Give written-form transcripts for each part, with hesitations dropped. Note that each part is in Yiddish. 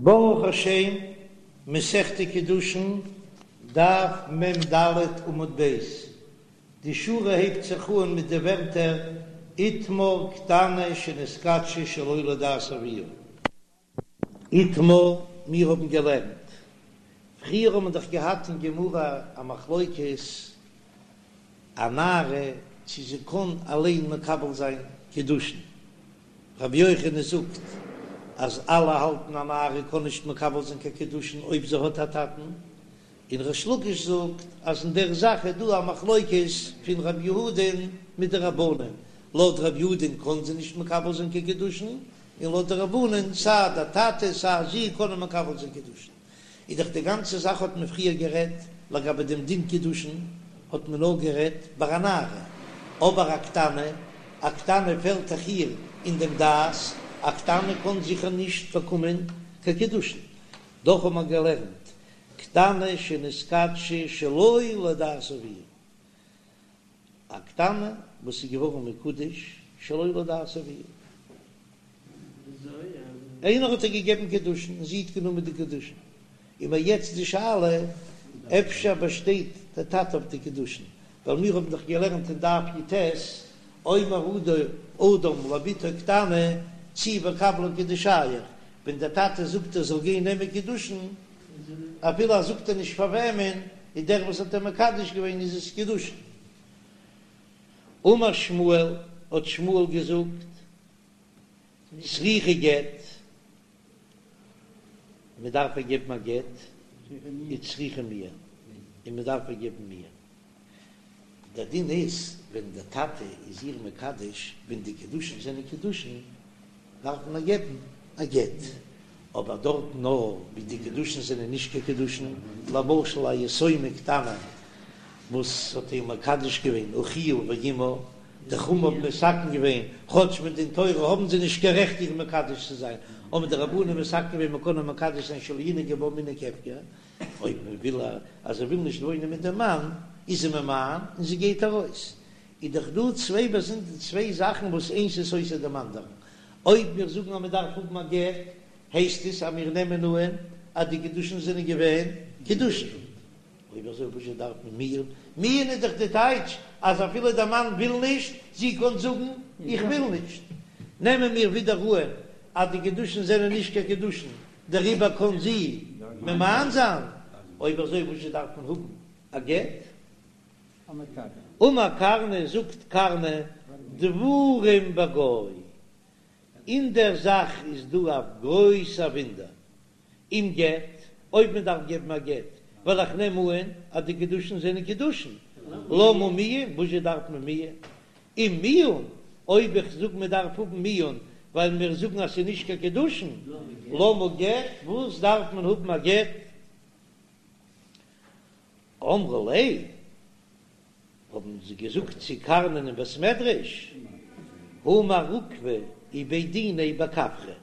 ברוך השם, מסכת קידושין, דף מ"ד עמוד ב', די שורה הייבט זיך אן מיט די ווערטער איתמר קטנה שנתקדשה שלא לדעת אביה. איתמר, מיר האבן געלערנט, פריער האט מען דאך געהאט אין גמרא א מחלוקת, א נערה צו זי קען אליין מקבל זיין קידושין, רבי יוחנן זאגט אז אלע האלטן א נערה קען נישט מקבל זיין קיין קידושין אויב זי האט א טאטן, און ריש לקיש זאגט אז אין דער זאך איז דא א מחלוקת פון רב יהודה'ן מיט די רבנן, לויט רב יהודה'ן קען זי נישט מקבל זיין קיין קידושין, און לויט די רבנן סיי דער טאטע סיי זי קענען מקבל זיין קידושין. איז דאך די גאנצע זאך האט מען פריער גערעדט לגבי דעם דין קידושין האט מען נאר גערעדט ביי א נערה, אבער א קטנה, א קטנה פעלט דאך איר אין דעם דעת, א קטנה קען זיכער נישט באקומען קיין קידושין, דאך האט מען געלערנט קטנה שנתקדשה שלא לדעת אביה, א קטנה וואס איז געווארן מקודש שלא לדעת אביה. איינער האט איר געגעבן קידושין און זי האט גענומען די קידושין, איז מיר יעצט די שאלה אפשר באשטייט דער טאטע אויף די קידושין, ווייל מיר האבן דאך געלערנט אין דף י"ט, אומר אדם לבתו קטנה צאי וקבלי קידושייך, ווען דער טאטע זאגט ער זאל גיין נעמען קידושין, אפילו ער זאגט איר נישט פאר וועמען, איז דער וואס האט איר מקדש געווען איז עס קידושין. אמר שמואל, האט שמואל געזאגט, צריכה גט, מען דארף איר געבן א גט, וצריכה מיאון, און מען דארף איר געבן מיאון. דער דין איז, ווען דער טאטע איז איר מקדש, ווען די קידושין זענען קידושין, דארף מען איר געבן א גט, אבער דארט נאר ווי די קידושין זענען נישט קיין קידושין, למשל א יתומה קטנה וואס האט איר מקדש געווען אחיה ואמה, די חכמים האבן מתקן געווען, כאטש מדין תורה האבן זיי נישט קיין רעכט איר מקדש צו זיין, האבן די רבנן מתקן געווען מען קען איר מקדש זיין שלא ינהגו בה מנהג הפקר, אויב מען וויל אז זי וויל נישט וואוינען מיט דעם מאן, איז זי ממאן און זי גייט ארויס. איז דאך דא צוויי באזונדער צוויי זאכן וואס איינס איז סותר דעם אנדערן. אויב מיר זאגן אז מען דארף האבן א גט, הייסט עס אז מיר נעמען אהן אז די קידושין זענען געווען קידושין. אויב אזוי וואזשע דארף מען מיאון? מיאון איז דאך די טייטש אז אפילו דער מאן וויל נישט, זי קען זאגן איך וויל נישט. נעמען מיר ווידער אהן אז די קידושין זענען נישט קיין קידושין, דעריבער קען זי ממאן זיין. אויב אזוי וואזשע דארף מען האבן א גט? אמר קרנא, זאגט קרנא, דברים בגו, אין דער זאך איז דא א גרויסע וואונדער, אם גט, אויב מען דארף געבן א גט, ווייל איך נעם אהן אז די קידושין זענען קידושין, למה מיאון, וואזשע דארף מען מיאון? אם מיאון, אויב איך זאג מען דארף האבן מיאון ווייל מיר זאגן אז ס'איז נישט קיין קידושין, למה גט, וואס דארף מען האבן א גט? אמרו ליה, האבן זיי געזאגט צו קרנא'ן אין בית מדרש, הא מר עוקבא ובי דיניה בכפרי,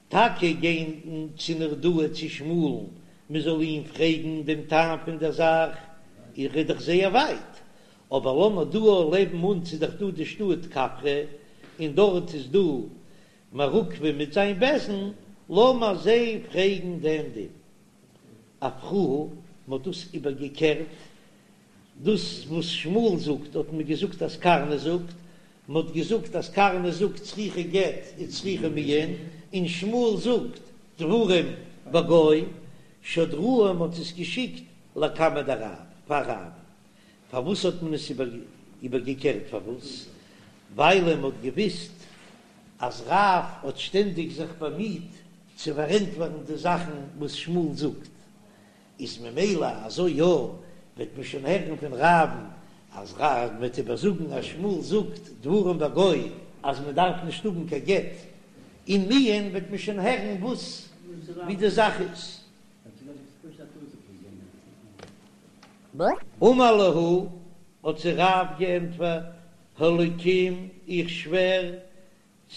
טאקע גיין צו נהרדעא צו שמואל'ן מען זאל אים פרעגן דעם טעם פון דער זאך, איז דאך זייער ווייט, אבער לאמיר דא לעבן אונז איז דאך דא די שטאט כפרי, און דארט איז דא מר עוקבא מיט זיין בית דין, לאמיר זיי פרעגן דעם דין. אפכוה, מען האט דאס איבערגעקערט, דאס וואס שמואל זאגט האט מען געזאגט אז קרנא זאגט, מען האט געזאגט אז קרנא זאגט צריכה גט וצריכה מיאון, און שמואל זאגט דברים בגו, שדרוה מען האט עס געשיקט לקמיה דרב, פאר רב, פארוואס האט מען עס איבערגעקערט פארוואס? ווייל מען האט געוויסט אז רב האט שטענדיג זיך באמיט צו פארענטפערן די זאכן וואס שמואל זאגט, איז ממילא אזוי יא, וועט מען שוין הערן פון רב'ן אז רב וועט איבערזאגן אז שמואל זאגט דברים בגו אז מען דארף נישט האבן קיין גט און מיאון וועט מען שוין הערן וואס ווי די זאך איז. אמר להו, האט זיי רב געענטפערט, האלקים איך שווער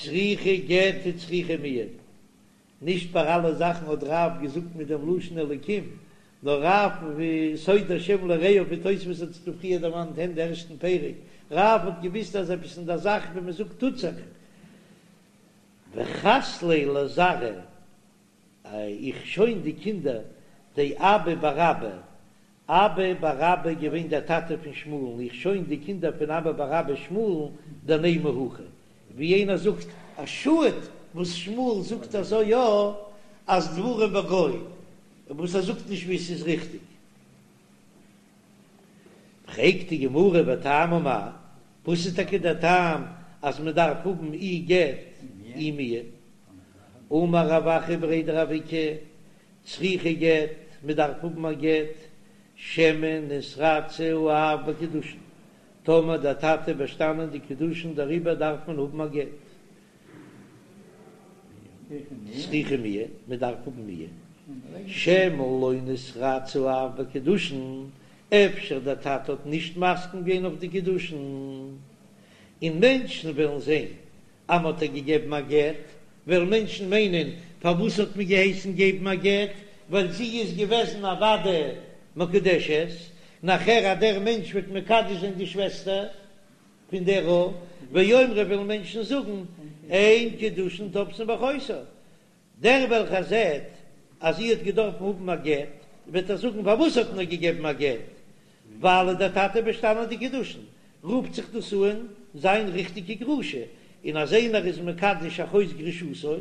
צריכה גט וצריכה מיאון. נישט ביי אלע זאכן האט רב געזאגט מיט דעם לשון אלקים, נאר רב ווי סוד השם ליראיו ווי תוספות האט עס פריער דערמאנט אין די ערשטן פרק, רב האט געוויסט אז עפעס אין דער זאך ווי מען זאגט טוט זיך. וחס ליה לזרעיה. איך שוין די קינדער דאבא בר אבא, אבא בר אבא געווען דער טאטע פון שמואל'ן, איך שוין די קינדער פון אבא בר אבא שמואל'ן דנימא הכי, ווי איינער זאגט א שאד וואס שמואל זאגט אזוי יא אז דברים בגו, וואס ער זאגט נישט ווי עס איז ריכטיג. פרעגט די גמרא וטעמא מאי, וואס איז טאקע דער טעם אז מען דארף האבן אי גט אי מיאון? אמר רב אחא בריה דרב איקא, צריכה גט, מען דארף האבן א גט, שמא נתרצה האב בקידושין, טאמער דער טאטע באשטאנען די קידושין דעריבער דארף מען האבן א גט. צריכה מיאון, מען דארף האבן מיאון, שמא לא נתרצה האב בקידושין, אפשר דער טאטע האט נישט מסכים געווען אויף די קידושין, און מענטשן וועלן זען אז מען האט איר געגעבן א גט, וועלן מענטשן מיינען פארוואס האט מען געהייסן געבן א גט, ווייל זי איז געוועזן א ודאי מקודשת, נאכער אז דער מענטש וועט מקדש זיין די שוועסטער פון דער א, ויאמרו וועלן מענטשן זאגן אין קידושין תופסין באחותה, דער וועלכער זעט אז זי האט געדארפן האבן א גט, וועט ער זאגן פארוואס האט מען איר געגעבן א גט, ווייל איז דער טאטע באשטאנען די קידושין, רופט זיך דאס אן זיין ריכטיגע גרושה, און אז איינער איז מקדש אחות גרושתו,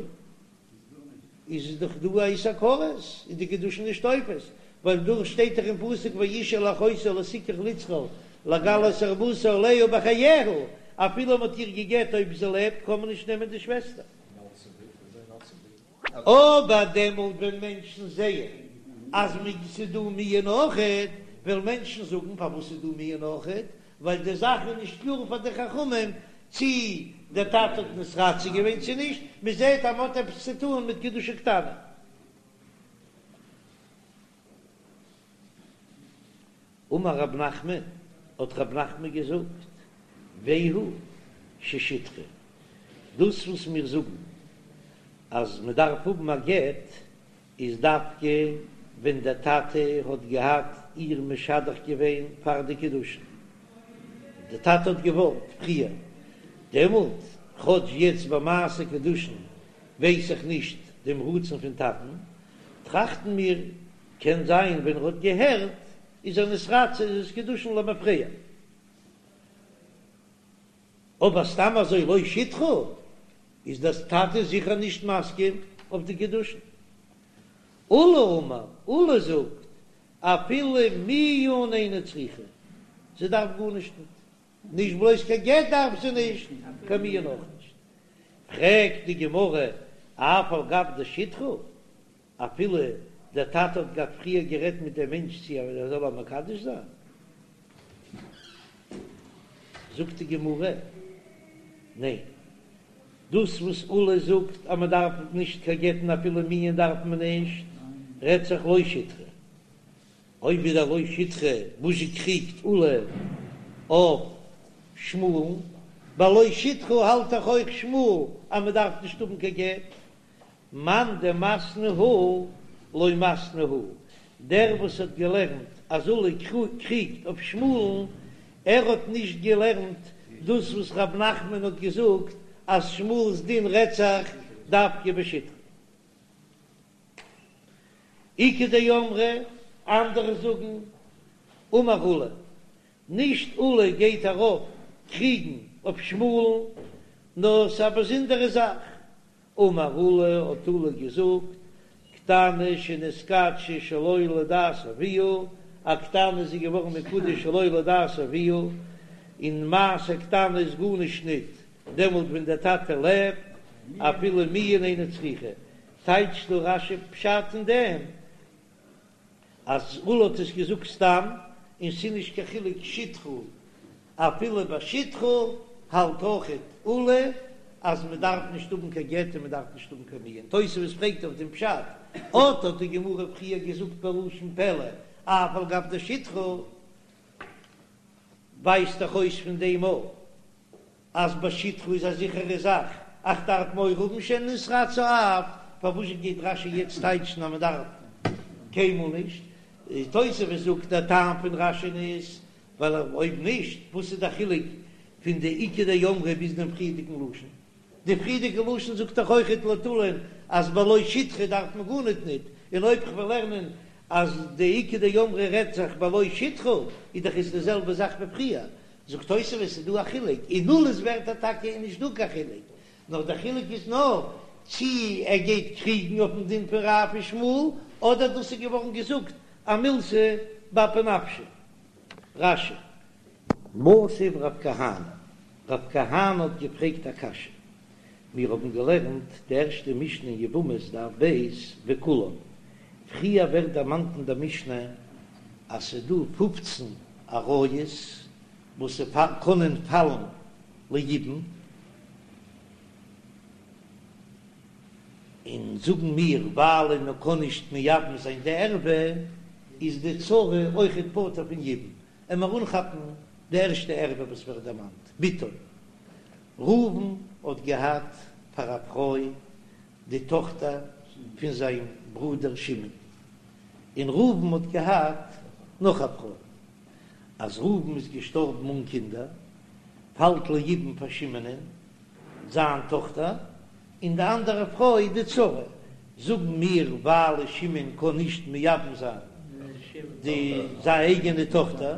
איז דאך דא א איסור כרת, איז די קידושין נישט תופס, ווייל דא שטייט דאך אין פסוק ואשה אל אחותה לא תקח לצרור לגלות ערותה עליה בחייה, אפילו מען האט איר גע'גט אויב זי לעבט קען מען נישט נעמען די שוועסטער. אבער דעמאלט ווען מענטשן זעען אז ס'איז דא מיאון אויכעט, וועלן מענטשן זאגן פארוואס איז דא מיאון אויכעט, ווייל די זאך איז נישט קלאר פאר די חכמים צי דער טאטע האט נתרצה געווען צי נישט, מען זעט אז מען האט עפעס צו טאן מיט קידושי קטנה. אמר רב נחמן, האט רב נחמן געזאגט, והוא ששידכה, דאס וואס מיר זאגן אז מען דארף האבן א גט, איז דווקא ווען דער טאטע האט געהאט איר משדך געווען פאר די קידושין, דער טאטע האט געוואלט פריער, דעמאלט, כאטש יעצט ביי מעשה קידושין ווייס איך נישט דעם רצון פון טאטן, טראכטן מיר, קען זיין ווען ער האט געהערט איז ער נתרצה איז עס קידושין למפרע. אבער סתם אזוי לא שידכה איז דער טאטע זיכער נישט מסכים אויף די קידושין. עולא אמר, עולא זאגט אפילו מיאון אינה צריכה, זי דארף גארנישט ניט, נישט בלויז קיין גט דארף זי נישט, קיין מיאון אויך נישט. פרעגט די גמרא, אף על גב דשידכה, אפילו דער טאטע האט געהאט פריער גערעדט מיט דעם מענטש צו ער זאל איר מקדש זיין, זאגט די גמרא, ניין, דאס וואס עולא זאגט אז מען דארף נישט קיין גט און אפילו מיאון דארף מען נישט, רעדט זיך לא שידכה. אויב איז דער לא שידכה וואס זשע קריגט עולא אויף שמואל'ן, ביי לא שידכה האלט דאך אויך שמואל אז מען דארף נישט האבן קיין גט, מאן דמתני הא לא מתני הא, דער וואס האט געלערנט אז עולא קריגט אויף שמואל'ן, ער האט נישט געלערנט דאס וואס רב נחמן האט געזאגט אז שמואל'ס דין רעדט זיך דווקא בשידכה. איכא דאמרי, אנדערע זאגן, אמר עולא, נישט עולא גייט ארויף קריגן אויף שמואל'ן, נאר ס'איז א באזונדערע זאך, אמר עולא האט עולא געזאגט, קטנה שנתקדשה שלא לדעת אביה, א קטנה איז געווארן מקודש שלא לדעת אביה, און מעשה קטנה איז גארנישט ניט דעמאלט ווען דער טאטע לעבט, אפילו מיאון אינה צריכה, טייטשט דא רש"י פשט אין דעם אז עולא האט עס געזאגט סתם, און ס'איז נישט קיין חילוק שידכה, אפילו ביי שידכה האלט אויכעט עולא אז מ'דארף נישט האבן קיין גט און מ'דארף נישט האבן קיין מיאון. תוספות פרעגט אויף דעם פשט, אט האט די גמרא פריער געזאגט בלשון פלא, אף על גב דשידכה, ווייזט דאך אויס פון דעם אויך אז ביי שידכה איז א זיכערע זאך, איך דארף מורא האבן שמא נתרצה האב, פארוואס גייט רש"י יעצט טייטשן אז מען דארף קיינמאל נישט? תוספות זאגט דער טעם פון רש"י'ן איז ווייל אויב נישט וואס איז די חילוק פון די איכא דאמרי ביז דעם פריערדיגן לשון? די פריערדיגע לשון זאגט דאך אויכעט לויט עולא'ן. אז בלא שטחה דארף מען גארניט ניט, און אויב כ'וועל לערנען אז די איכא דאמרי רעדט זיך בלא שטחה איז דאך עס די זעלבע זאך ווי פריער, זאגט תוספות ס'איז דא א חילוק, אין עולא'ס ווערטער טאקע איז נישט דא קיין חילוק, נאר דער חילוק איז נאר צי ער גייט קריגן אויפן דין פון רב ושמואל אדער דאס איז געווארן געזאגט א מילתא באפי נפשיה. רש"י. מתיב רב כהנא, רב כהנא האט געפרעגט א קשיא, מיר האבן געלערנט די ערשטע משנה אין יבמות דף ב' וכולן, פריער ווערט דערמאנט אין דער משנה אז ס'איז דא פופצן עריות וואס קענען פאלן ליבום, און זאגן מיר ווייל מען קען נישט מייבם זיין די ערווה איז די צרה אויכעט פטור פון יבום, עמער אנכאפן די ערשטע ערווה וואס ווערט דערמאנט, בתו. ראובן האט געהאט פאר א פרוי די טאכטער פון זיין ברודער שמעון, און ראובן האט געהאט נאך א פרוי. אז ראובן איז געשטארבן אן קינדער, פאלט ליבום פאר שמעונ'ען זיין טאכטער, און די אנדערע פרוי די צרה. זאגן מיר ווייל שמעון קען נישט מייבם זיין די זיין אייגענע טאכטער,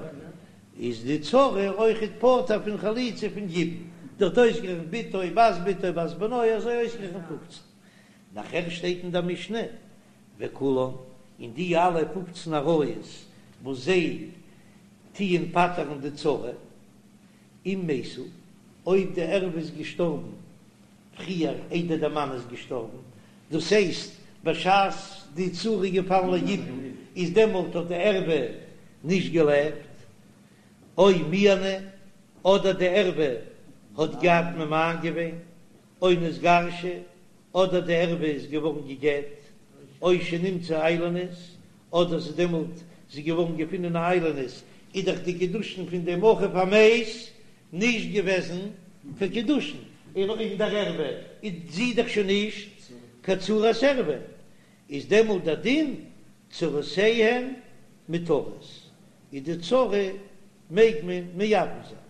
איז די צרה אויכעט פטור פון חליצה פון יבום, דארט אויסגערעכנט בתו בת בתו בת בנו אזוי אויסגערעכנט פופצן. נאכער שטייט אין דער משנה וכולן, און די אלע פופצן עריות וואס זיי טוען פטר'ן די צרה, אם מתו, אויב די ערווה איז געשטארבן פריער איידער דער מאן איז געשטארבן, דאס הייסט בשעת די צרה איז געפאלן ליבום איז דעמאלט האט די ערווה נישט געלעבט, או מיאנה, אדער די ערווה האט געהאט ממאן געווען, או נתגרשה, אדער די ערווה איז געווארן גע'גט, או שנמצאה איילונית, אדער ס'איז דעמאלט זי געווארן געפונען א איילונית, איז דאך די קידושין פון דעם אחיו המת נישט געוועזן קיין קידושין, און אין דער ערווה איז זי דאך שוין נישט קיין צרת ערווה, איז דעמאלט דער דין צרותיהן מותרות, איז די צרה מעג מען מייבם זיין.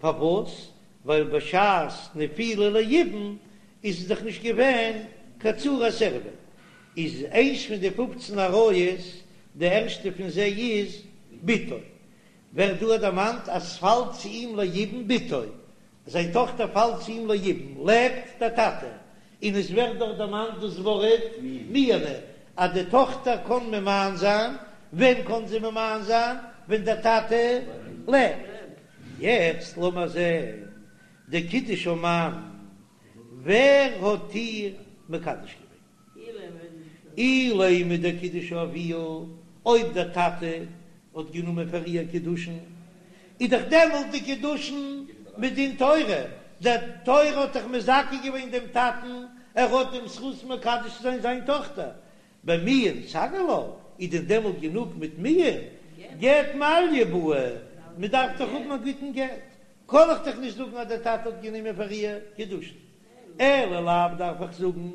פארוואס? ווייל בשעת נפילה ליבום איז עס דאך נישט געווען קיין צרת ערווה. איז איינס פון די פופצן עריות, די ערשטע פון זיי איז בתו. ווערט דא דערמאנט אז ס'פאלט צו אים ליבום בתו, זיין טאכטער פאלט צו אים ליבום, לעבט דער טאטע, און עס ווערט דאך דערמאנט דאס ווארט מיאנה, אז די טאכטער קען ממאן זיין, ווען קען זי ממאן זיין? ווען דער טאטע לעבט. יעצט לאמער זען דקידשה מאן, ווער האט איר מקדש געווען? אילימא דקידשה אביה, אויב דער טאטע האט גענומען פאר איר קידושין, איז דאך דעמאלט די קידושין מדין תורה, די תורה האט דאך מזכה געווען דעם טאטן, ער האט דעם זכות מקדש צו זיין זיין טאכטער, במיאון סגי לה, איז דען דעמאלט גענוג מיט מיאון? גט מעליא בעי, מען דארף דאך האבן א גוטן גט, קען איך דאך נישט זאגן אז דער טאטע האט גענומען פאר איר קידושין, אלא לאו דארף איך זאגן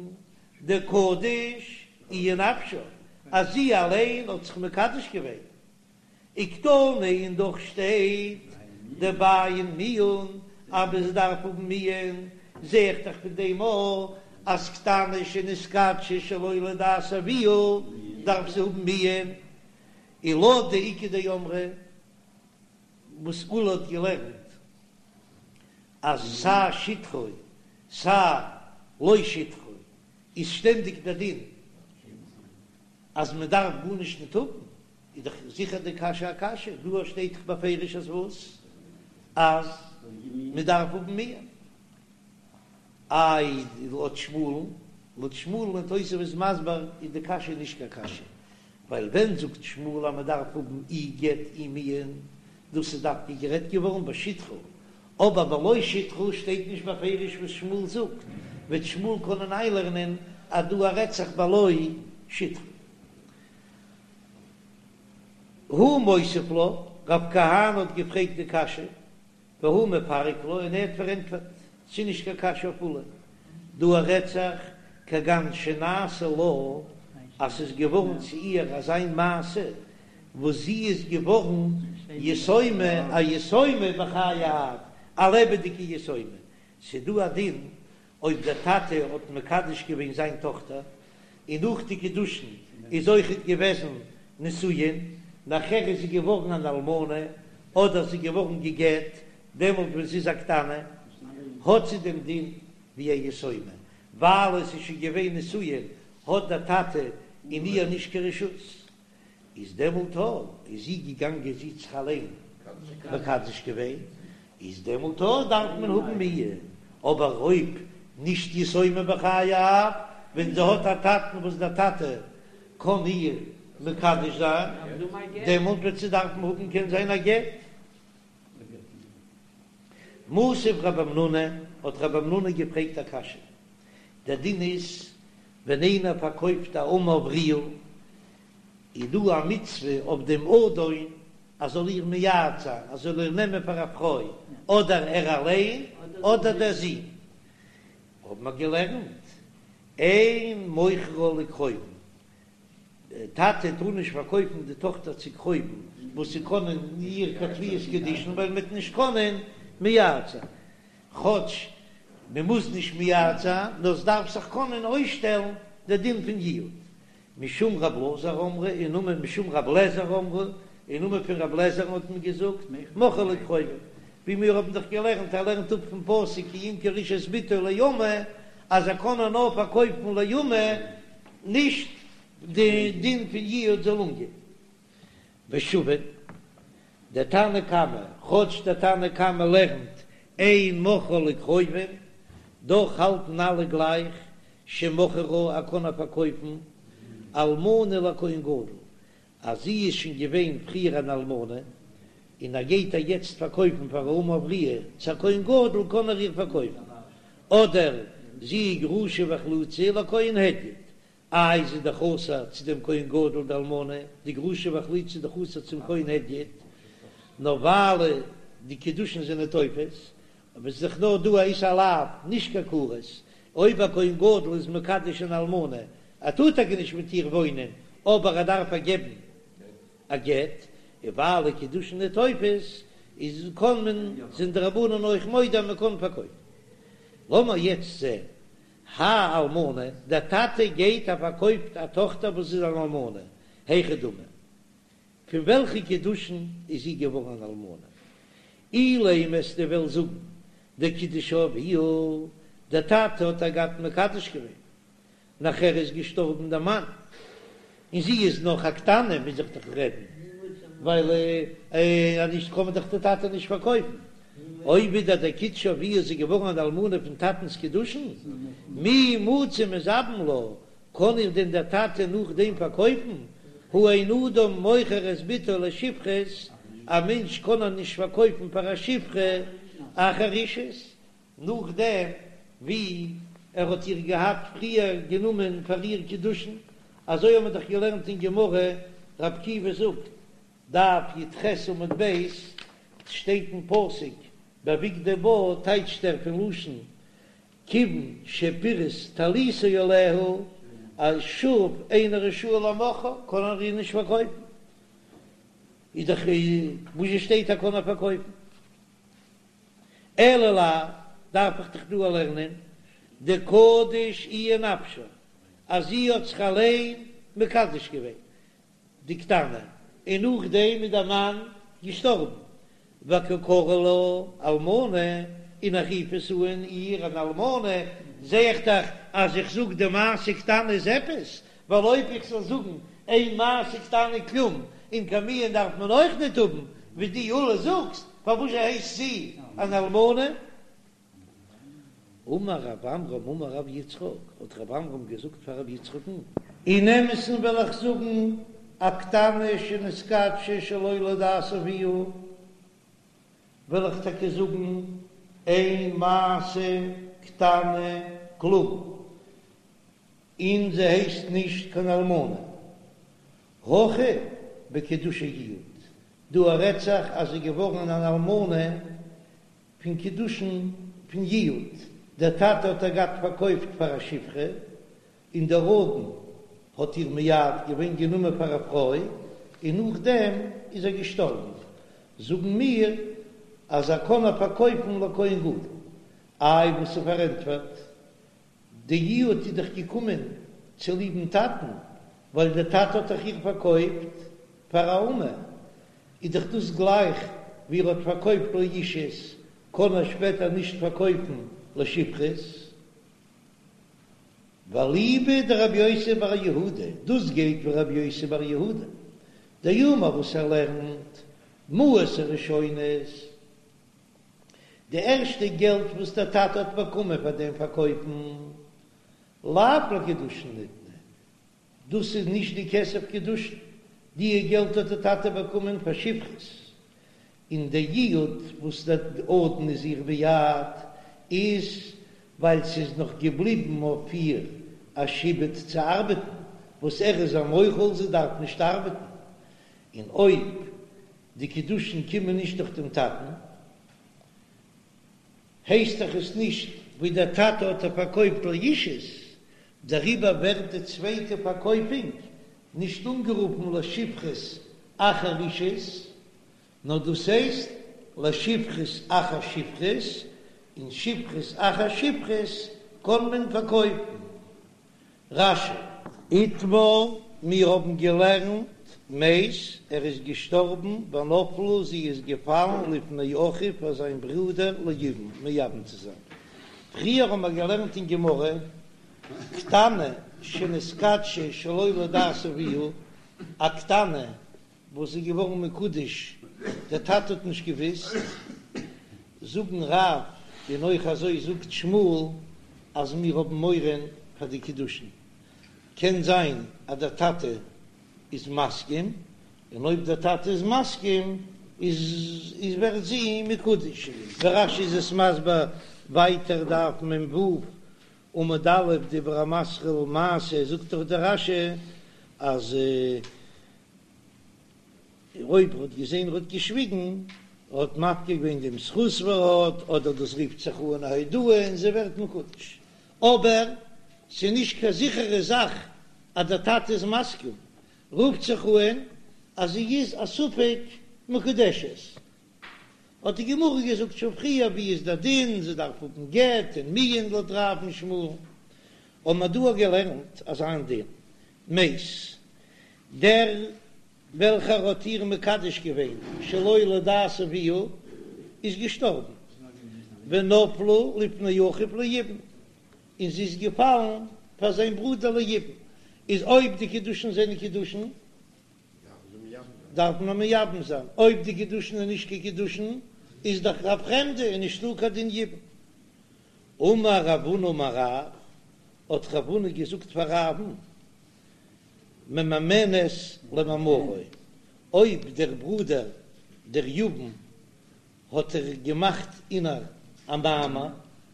דקדיש איהי נפשה, אז זי אליין האט זיך מקדש געווען. וקתני און דאך שטייט דבעין מיאון אז מען דארף האבן מיאון, זע איך דאך פון דעם אויך אז קטנה שנתקדשה שלא לדעת אביה דארף זי האבן מיאון, און לויט די איכא דאמרי וואס עולא האט געלערנט אז סיי שטחה סיי לא שטחה איז שטענדיג דער דין אז מען דארף גארנישט ניט האבן, איז דאך זיכער די קשיא א קשיא, דא שטייט דאך בפירוש אז וואס? אז מען דארף האבן מיאון. איי לויט שמואל'ן, לויט שמואל'ן און תוספות איז מסביר איז די קשיא נישט קיין קשיא, ווייל ווען זאגט שמואל אז מען דארף האבן אי גט אי מיאון, דאס איז דווקא גערעדט געווארן בשטחה, אבער בלא שטחה שטייט נישט בפירוש וואס שמואל זאגט, וועט שמואל קענען איינלערנען אז דא רעדט זיך בלא שטחה. הוא מותיב לה, רב כהנא האט געפרעגט די קשיא, והוא מפרק לה, און ער האט פארענטפערט, ס'איז נישט קיין קשיא אויף עולא, דא רעדט זיך כגון שנעשה לה, אז ס'איז געווארן צו איר אזיין מעשה וואס זי איז געווארן יתומה, א יתומה בחיי האב, א לעבעדיגע יתומה, ס'איז דא א דין. אויב דער טאטע האט מקדש געווען זיין טאכטער, און נאך די קידושין איז אויכעט געוועזן נישואין, נאכער איז זי געווארן אן אלמנה, אדער זי געווארן גע'גט, דעמאלט ווען זי איז א קטנה, האט זי דעם דין ווי א יתומה, ווייל עס איז שוין געווען נישואין, האט דער טאטע אין איר נישט קיין רשות. איז דעמאלט אויב איז זי געגאנגען זי האט זיך אליין מקדש געווען, איז דעמאלט אויך דארף מען האבן מיאון, אבער אויב נישט יתומה בחיי אב, ווען זי האט א טאטן וואס דער טאטע קען איר מקדש זיין, דעמאלט וועט זי דארפן האבן קען זיין א גט. מתיב רב המנונא, האט רב המנונא געפרעגט א קשיא, דער דין איז ווען איינער פארקויפט א אמה עבריה, איז דא א מצוה אויף דעם אדון אז זאל איר מייעד זיין, אז זאל איר נעמען פאר א פרוי, אדער ער אליין אדער דער זון. האבן מיר געלערנט, אין מוכרה לקרובים, דער טאטע טאר נישט פארקויפן די טאכטער צו קרובים וואס ס'קענען איר קיין תפיסת קידושין ווייל מ'וועט נישט קענען מייעד זיין, כאטש מ'מוז נישט מייעד זיין, נאר ס'דארף זיך קענען אויסשטעלן דער דין פון יעוד. משום רב אלעזר אמרו, אין נאמען משום רב לעזער אמרו, אין נאמען פון רב לעזער'ן האט מען געזאגט, מוכרה לקרובים, ווי מיר האבן דאך געלערנט, ער לערנט אפ פון פסוק כי ימכור איש את בתו לאמה, אז ער קען איר נאר פארקויפן לאמה, נישט די דין פון יעוד זאל אנגיין. ושוין, דער תנא קמא, כאטש דער תנא קמא לערנט אין מוכרה לקרובים, דאך האלטן אלע גלייך שמוכרה ער קען איר פארקויפן אלמנה לכהן גדול, אז זי איז שוין געווען פריער אן אלמנה, און ער גייט איר יעצט פארקויפן פאר א אמה עבריה צו א כהן גדול קען ער איר פארקויפן, אדער זי איז גרושה וחלוצה לכהן הדיוט, איי זי איז דאך אסור צו דעם כהן גדול די אלמנה, די גרושה וחלוצה איז דאך אסור צום כהן הדיוט, נאר ווייל די קידושין זענען תופס, אבער ס'איז דאך נאר דא א איסור לאו, נישט קיין כרת, אויב א כהן גדול איז מקדש אן אלמנה, ער טאר טאקע נישט מיט איר וואוינען, אבער ער דארף איר געבן א גט, און ווייל די קידושין איז תופס, איז קען מען, זענען די רבנן אויך מודה אז מען קען פארקויפן. לאמיר יעצט זען, האי אלמנה, דער טאטע גייט ער פארקויפט א טאכטער וואס איז אן אלמנה, היכי דמי, פון וועלכע קידושין איז זי געווארן אן אלמנה? אילימא וועסטו וועלן זאגן דקידשה אביה, דער טאטע האט איר געהאט מקדש געווען, נאכער איז געשטארבן דער מאן, און זי איז נאך א קטנה, מוז איך דאך רעדן, ווייל אז נישט קען מען דאך די טאטע נישט פארקויפן. אויב ווידער דקידשה אביה איז זי געווארן אן אלמנה פון טאטנ'ס קידושין, מי מצי מזבין לה, קען איר דען דער טאטע נאכדעם פארקויפן? הא אין אדם מוכר את בתו לשפחות, א מענטש קען איר נישט פארקויפן פאר א שפחה אחר אישות, נאכדעם ווי ער האט איר געהאט פריער גענומען פאר איר קידושין, אזוי האבן מיר דאך געלערנט אין גמרא, רבי עקיבא זאגט, דף י"ח עמוד ב', שטייט אין פסוק בבגדו בה, טייטשט ער פון לשון כיוון שפירש טליתו עליה, אז שוב אינו רשאי למוכרה, קען ער איר נישט פארקויפן, איז דאך וואס שטייט ער קען איר פארקויפן. אלא לאו, דארף איך דאך דא לערנען דקדיש איהי נפשה, אז זי האט זיך אליין מקדש געווען, די קטנה, און נאכדעם איז דער מאן געשטארבן, וקא קרי לה אלמנה, און איך רוף עס אן איר אן אלמנה, זע איך דאך אז איך זאג די מעשה קטנה איז עפעס, ווייל אויב איך זאל זאגן אין מעשה קטנה כלום, און קיין מיאון דארף מען אויך ניט האבן, ווי דו עולא זאגסט, פארוואס הייסט זי אן אלמנה? אמר רב עמרם אמר רב יצחק, האט רב עמרם געזאגט פאר רב יצחק'ן. אין אמת'ן וועל איך זאגן, א קטנה שנתקדשה שלא לדעת אביה, וועל איך טאקע זאגן, אין מעשה קטנה כלום, און זי הייסט נישט קיין אלמנה. הכא בקידושי יעוד, דא רעדט זיך אז זי איז געווארן אן אלמנה פון קידושין פון יעוד, דער טאטע האט איר געהאט פארקויפט פאר א שפחה, און דער אדון האט איר מייעד געווען גענומען פאר א פרוי, און נאכדעם איז ער געשטארבן, זאגן מיר אז ער קען איר פארקויפן לכהן גדול, איי וואס איז פארענטפערט? די יעוד איז דאך געקומען צוליבן טאטן, ווייל דער טאטע האט דאך איר פארקויפט פאר א אמה, איז דאך דאס גלייך ווי ער האט פארקויפט לאישות, קען ער שפעטער נישט פארקויפן לשפחות. ואליבא דרבי יוסי בר יהודה, דאס גייט ווי רבי יוסי בר יהודה דאמר וואס ער לערנט מעות הראשונות, די ערשטע געלט וואס דער טאטע האט באקומען פאר דעם פארקויפן, לאו לקידושין ניתנו, דאס איז נישט די כסף קידושין, די געלט האט די טאטע באקומען פאר שפחות, און די יעוד וואס דער אדון איז איר מייעד איז ווייל ס'איז נאך געבליבן אויף איר א שעבוד צו ארבעטן, וואס ער איז איר מוחל זי דארף נישט ארבעטן, און אויב די קידושין קומען נישט דורך דעם טאטן הייסט דאך עס נישט ווי דער טאטע האט איר פארקויפט לאישות, דעריבער ווערט די צווייטע פארקויפונג נישט אנגערופן לשפחות אחר אישות, נאר דאס הייסט לשפחות אחר שפחות, און שפחות אחר שפחות קען מען פארקויפן. רש"י. איתמר, מיר האבן געלערנט, מת, ער איז געשטארבן, ונפלה, זי איז געפאלן לפני אחיו פאר זיין ברודער ליבום, מייבם צו זיין. פריער האבן מיר געלערנט אין גמרא, קטנה שנתקדשה שלא לדעת אביה, א קטנה וואס איז געווארן מקודש, דער טאטע האט נישט געוואוסט, זאגן רב און אויך אזוי זאגט שמואל אז מיר האבן מורא פאר די קידושין, קען זיין אז דער טאטע איז מסכים, און אויב דער טאטע איז מסכים איז איז ווערט זי מקודש, ווי רש"י איז עס מסביר ווייטער דף מ"ו עמוד א' דיבור המתחיל מעשה זאגט דאך דער רש"י אז אויב ער האט געזען ער האט געשוויגן, ער האט מפקיר געווען דעם זכות וואס ער האט, אדער דאס רופט זיך אן א הודאה און זי ווערט מקודש. אבער ס'איז נישט קיין זיכערע זאך אז דער טאטע איז מסכים, רופט זיך אן אז זי איז א ספק מקודשת. האט די גמרא געזאגט שוין פריער ווי איז דער דין, זי דארף האבן גט און מיאון לויט רב און שמואל, האבן מיר דא געלערנט אזא דין, מת, דער וועלכער האט איר מקדש געווען שלא לדעת אביה איז געשטארבן, ונפלה לפני אחיו ליבום, און זי איז געפאלן פאר זיין ברודער ליבום, איז אויב די קידושין זענען קידושין דארף מען מייבם זיין, אויב די קידושין איז נישט קיין קידושין איז דאך א פרעמדע און נישטא קיין דין יבום. אמר רב הונא אמר רב, האט רב הונא געזאגט פאר רב'ן, ממאנת למאמרו, אויב דער ברודער דער יבם האט ער געמאכט אין איר א מאמר,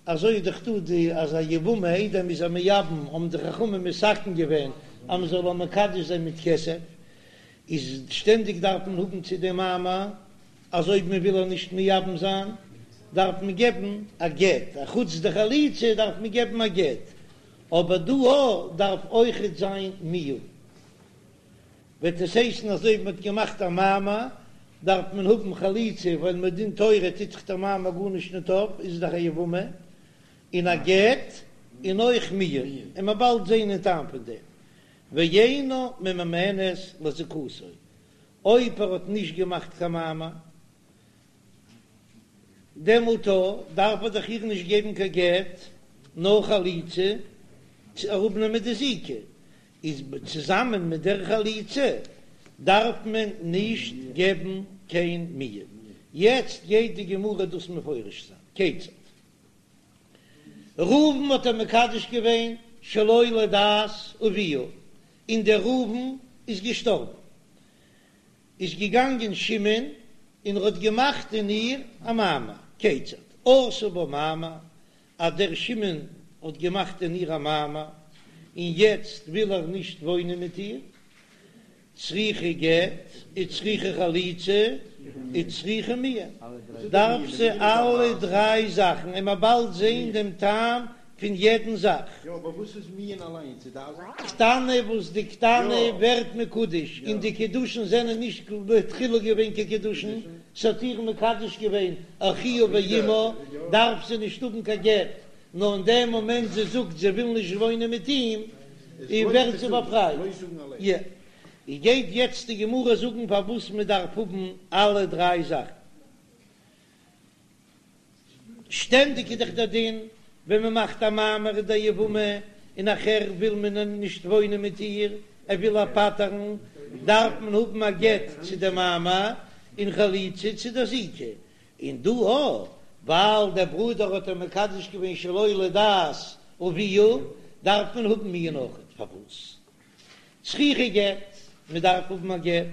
אזוי איז דאך דא די אז א יבמה איידער מ'איז איר מייבם האבן די חכמים מתקן געווען אז מ'זאל איר מקדש זיין מיט כסף, איז שטענדיג דארף מען האבן צו דעם מאמר אז אויב מען וויל איר נישט מייבם זיין דארף מען געבן א גט, א חוץ די חליצה דארף מען געבן א גט, אבער דא אויך דארף אויכעט זיין מיאון. וועט עס הייסן אז אויב מען האט געמאכט א מאמר דארף מען האבן חליצה ווייל מדין תורה טוט זיך דער מאמר גארנישט ניט אויף איז דאך א יבמה און א גט און אויך מיאון און מ'עט באלד זעהן אין טעם פון דעם ואינה ממאנת לזיקתו אויב ער האט נישט געמאכט קיין מאמר דעמאלט דארף ער דאך איר נישט געבן קיין גט נאר חליצה צו אראפנעמען די זיקה איז צוזאמען מיט דער חליצה דארף מען נישט געבן קיין מיאון. יעצט גייט די גמרא דאס מפרש זיין, כיצד? ראובן האט איר מקדש געווען שלא לדעת אביה, און דער ראובן איז געשטארבן, איז געגאנגען שמעון און ער האט געמאכט אין איר א מאמר, כיצד? עשה בה מאמר, אז דער שמעון האט געמאכט אין איר א מאמר און יעצט וויל ער נישט וואוינען מיט איר, צריכה גט וצריכה חליצה וצריכה מיאון, דארף זי אלע דריי זאכן און מ'עט באלד זען דעם טעם פון יעדן זאך. קטנה וואס די קטנה ווערט מקודש און די קידושין זענען נישט בתחילה געווען קיין קידושין, ס'האט איר מקדש געווען אחיה ואמה, דארף זי נישט האבן קיין גט. נאר אין דעם מאמענט זי זאגט זי וויל נישט וואוינען מיט אים, ווערט זי באפרייט. יא. גייט יעצט די גמרא זאגן פארוואס מען דארף האבן אלע דריי זאכן. שטענדיג איז דאך דער דין ווען מען מאכט א מאמר אין דער יבמה און נאכער וויל מען נישט וואוינען מיט איר, ער וויל איר פטר'ן, דארף מען האבן א גט צו דער מאמר און חליצה צו דער זיקה, און דא אויך ווייל דער ברודער האט איר מקדש געווען שלא לדעת אביה דארף מען האבן מיאון אויכעט, פארוואס? צריכה גט, מען דארף האבן א גט,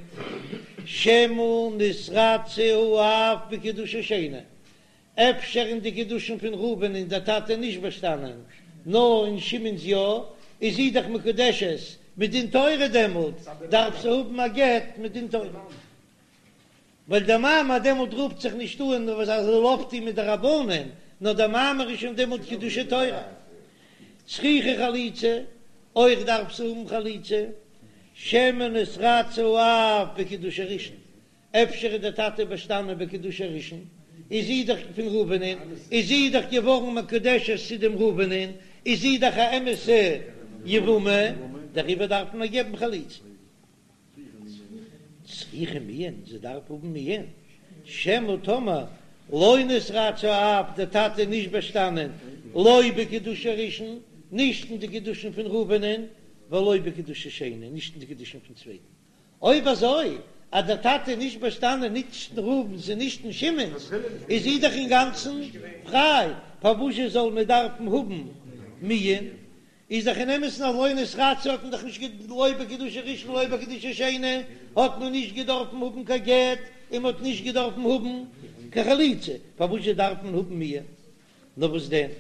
שמא נתרצה האב בקידושי שני, אפשר אין די קידושין פון ראובן איז דער טאטע נישט באשטאנען, נאר אין שמעון'ס יא, איז זי דאך מקודשת מדין תורה דעמאלט דארף זי האבן א גט מדין תורה. ווייל דער מאמר דעמאלט רופט זיך נישט אן וואס ער זאל אויפטון מדרבנן, נאר דער מאמר איז שוין דעמאלט קידושי תורה. צריכה חליצה, אויך דארף זי האבן חליצה, שמא נתרצה האב בקידושי ראשון, אפשר איז דער טאטע באשטאנען בקידושי ראשון, איז זי דאך פון ראובנ'ען, איז זי דאך געווארן מקודשת צו דעם ראובנ'ען, איז זי דאך א אמת'ע יבמה, דעריבער דארף מען איר געבן חליצה. צריכה מיאון, זי דארף האבן מיאון, שמא טאמער לא נתרצה האב, דער טאטע איז נישט באשטאנען, לא בקידושי ראשון, נישט אין די קידושין פון ראובנ'ען, ולא בקידושי שני, נישט אין די קידושין פון צווייטן. אויב אזוי אז דער טאטע איז נישט באשטאנען נישט אין ראובן'ס און נישט אין שמעון'ס, איז זי דאך אינגאנצן פריי, פארוואזשע זאל מען דארפן האבן מיאון? איז דאך אין אמת'ן אז לא נתרצה האט מען דאך נישט לא בקידושי ראשון לא בקידושי שני האט מען נישט געדארפן האבן קיין גט און מען האט נישט געדארפן האבן קיין חליצה, פארוואס דארף מען האבן מיאון? נאר וואס דען?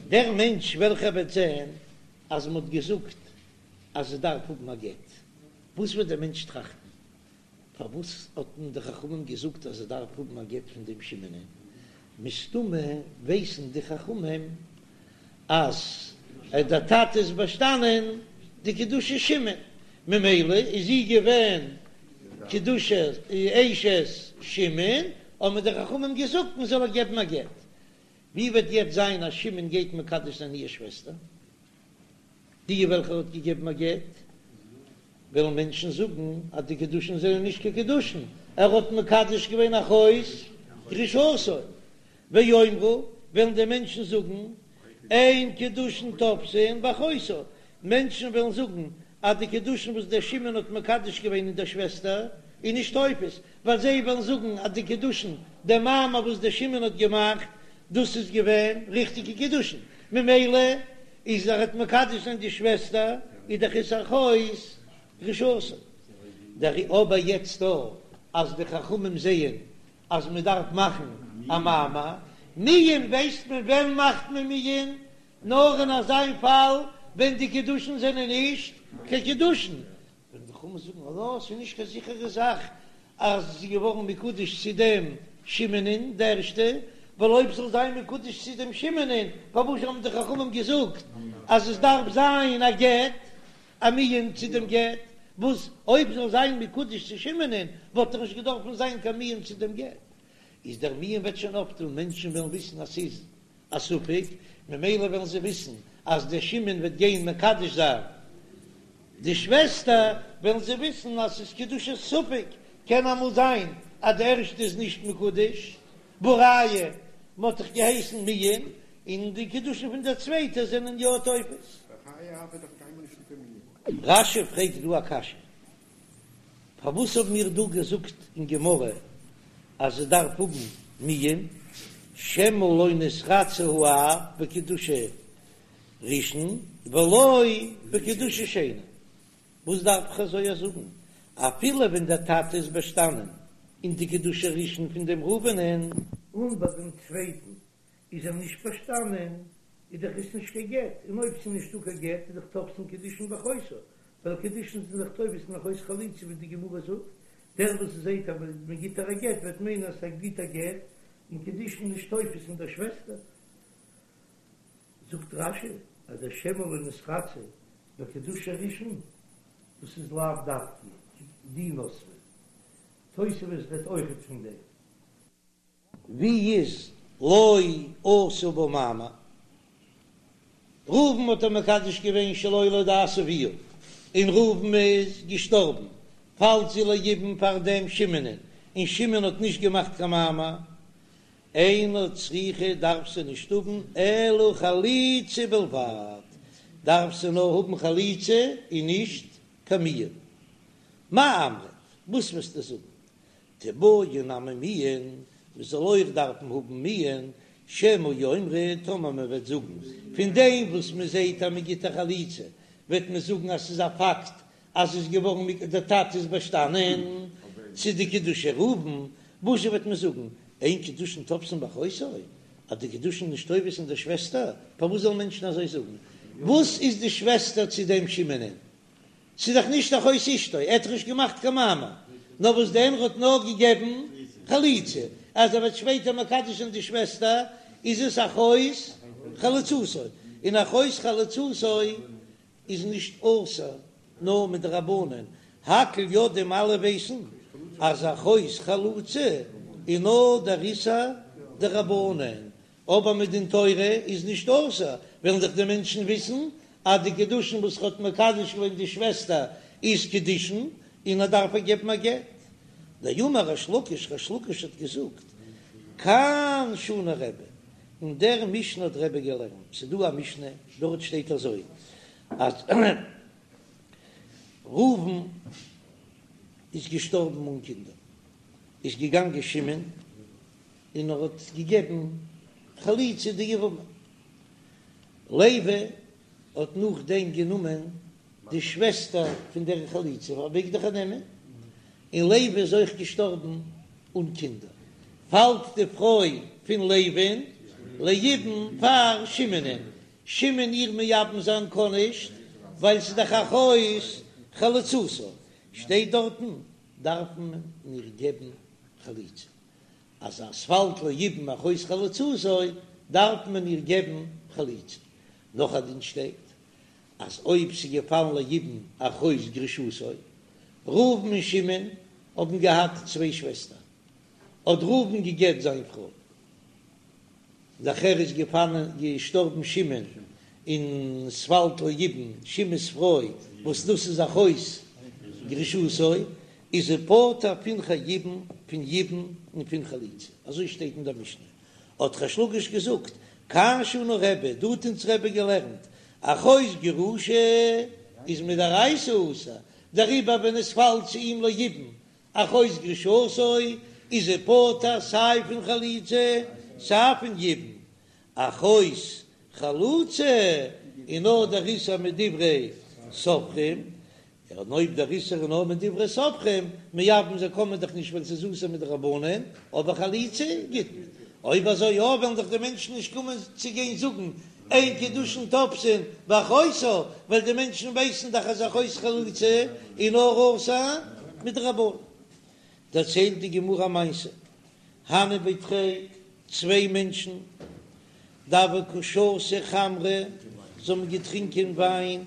דער מענטש וועלכער וועט זען אז מען האט געזאגט אז ער דארף האבן א גט, וואס וועט דער מענטש טראכטן? פארוואס האט מען די חכמים געזאגט אז ער דארף האבן א גט פון דעם שמעונ'ען? מסתמא ווייסן די חכמים אז דער טאטע איז באשטאנען די קידושי שמעון, ממילא איז זי געווען קידושי אשת שמעון, האבן די חכמים געזאגט מען זאל איר געבן א גט. ווי וועט יעצט זיין אז שמעון גייט מקדש זיין איר שוועסטער? די וועלכע ער האט געגעבן א גט, וועלן מענטשן זאגן אז די קידושין זענען נישט קיין קידושין, ער האט מקדש געווען אחות גרושתו, ויאמרו, וועלן די מענטשן זאגן, אין קידושין תופסין באחותה, מענטשן וועלן זאגן אז די קידושין וואס דער שמעון האט מקדש געווען אין דער שוועסטער איז נישט תופס, ווייל זיי וועלן זאגן אז די קידושין, דער מאמר וואס דער שמעון האט געמאכט, דאס איז געווען ריכטיגע קידושין, ממילא איז ער האט מקדש זיין די שוועסטער איז דאך עס אחות גרושתו. דער אבער יעצט דא אז די חכמים זעען אז מען דארף מאכן א מאמר מיאון ווייסט מען ווען מאכט מען מיאון נאר אין אזיין פאל ווען די קידושין זענען נישט קיין קידושין, ווען די חכמים זאגן אז לא, ס'איז נישט קיין זיכערע זאך אז זי איז געווארן מקודש צו דעם שמעונ'ען די ערשטע, ווייל אויב זאל זיין מקודש צו דעם שמעונ'ען, פארוואס האבן די חכמים געזאגט אז עס דארף זיין א גט, א מיאון צו דעם גט, וואס אויב זאל זיין מקודש צו שמעונ'ען וואלט דאך נישט געדארפן זיין קיין מיאון צו דעם גט, איז דער מיאון וועט שוין אויפטון, מענטשן וועלן וויסן אז ס'איז א ספק, ממילא וועלן זיי וויסן אז דער שמעון וועט גיין מקדש זיין די שוועסטער, וועלן זיי וויסן אז ס'איז קידושי ספק, קען אמאל זיין אז די ערשטע איז נישט מקודש, והא ראיה מ'האט דאך געהייסן מיאון, און די קידושין פון דער צווייטער זענען יא תופס. רש"י פרעגט דא א קשיא, פארוואס האבן מיר דא געזאגט אין גמרא אז עס דארף האבן מיאון, שמא לא נתרצה האב בקידושי ראשון ולא בקידושי שני, וואס דארף איך אזוי זאגן אפילו ווען דער טאטע איז באשטאנען אין די קידושי ראשון פון דעם ראובנ'ען, און ביי דעם צווייטן איז ער נישט באשטאנען, איז דאך עס נישט קיין גט, און אויב ס'איז נישטא קיין גט איז דאך תופסין קידושין באחותה, ווייל קידושין זענען דאך תופס אין אחות חלוצה ווי די גמרא זאגט, דער וואס זעהט אז מען גיט איר א גט וועט מיינען אז ער גיט א גט, און קידושין נישט תופס אין דער שוועסטער. זאגט רש"י אז דער שמא לא נתרצה בקידושי ראשון, דאס איז לאו דווקא די נוסחא, תוספות רעדט אויכעט פון דעם. ווי איז לא עשה בה מאמר? ראובן האט איר מקדש געווען שלא לדעת אביה, און ראובן איז געשטארבן, פאלט זי ליבום פאר דעם שמעונ'ען, און שמעון האט נישט געמאכט קיין מאמר, אינה צריכה דארף זי נישט האבן אלא חליצה בלבד, דארף זי נאר האבן חליצה און נישט קיין מיאון. מאי אמרת, וואס וועסטו זאגן? תיבעי נמי מיאון, מען זאל אויך דארפן האבן מיאון, שמא יאמרו, טאמער מען וועט זאגן, פון דעם וואס מען זעט אז מען גיט א חליצה, וועט מען זאגן אז ס'איז א פאקט אז ס'איז געווארן דער טאטע איז באשטאנען צו די קידושי ראובן, וואזשע וועט מען זאגן, אין קידושין תופסין באחותו, אז די קידושין נישט תופס אין דער שוועסטער, פארוואס זאלן מענטשן אזוי זאגן? וואס איז די שוועסטער צו דעם שמעונ'ען? ס'איז דאך נישט אחות אשתו, ער האט דאך נישט געמאכט קיין מאמר, נאר וואס דען ער האט נאר געגעבן חליצה, אז ער וועט שפעטער מקדש זיין די שוועסטער איז עס אחות חלוצתו, און אחות חלוצתו איז נישט אסור נאר מדרבנן, הכל יודעים אלע ווייסן אז אחות חלוצה איז נאר דער איסור דרבנן, אבער מדין תורה איז נישט אסור, וועלן דאך די מענטשן וויסן אז די קידושין וואס ער האט מקדש געווען די שוועסטער איז קידושין און ער דארף איר געבן א גט. דאמר ריש לקיש, ריש לקיש האט געזאגט, כאן שנה רבי, אין דער משנה האט רבי געלערנט, ס'איז דא א משנה, דארט שטייט אזוי אז ראובן איז געשטארבן אן קינדער, איז געגאנגען שמעון און ער האט געגעבן חליצה די יבמה. לוי האט נאכדעם גענומען די שוועסטער פון דער חלוצה, ער מעג דאך איר נעמען, און לוי איז אויך געשטארבן אן קינדער. פאלט די פרוי פון לוי'ן ליבום פאר שמעונ'ען, שמעון איר מייבם זיין קען נישט, ווייל ס'איז דאך אחות חלוצתו, שטייט דארטן דארף מען איר געבן חליצה. אז עס פאלט ליבום אחות חלוצתו דארף מען איר געבן חליצה. נאך א דין שטייט אז אויב ס'איז געפאלן ליבום אחות גרושתו, ראובן און שמעון האבן געהאט צוויי שוועסטער, האט ראובן גע'גט זיין פרוי, נאכער איז געפאלן געשטארבן שמעון און ס'פאלט ליבום שמעון'ס פרוי וואס דאס איז אחות גרושתו איז ער פטור פון יבום פון יבום און פון חליצה אזוי שטייט אין דער משנה האט ריש לקיש געזאגט כאן שנה רבי דא האט אונז רבי געלערנט אחות גרושה איז מדאורייתא אסור דעריבער ווען עס פאלט צו אים ליבום אחות גרושתו איז ער פטור סיי פון חליצה סיי פון יבום, אחות חלוצה איז נאר דער איסור מדברי סופרים, און אויב דער איסור איז נאר מדברי סופרים, מייבם זיין קען מען דאך נישט ווייל ס'איז אסור מדרבנן, אבער חליצה גיט מען. אויב אזוי יא וועלן דאך די מענטשן נישט קומען צו גיין זאגן אין קידושין תופסין באחותה, ווייל די מענטשן ווייסן דאך אז אחות חלוצה איז נאר אסור מדרבנן. דערציילט די גמרא א מעשה, הנהו בי תרי, צוויי מענטשן, דהוו קא שתו חמרא, זיי האבן געטרינקען וויין,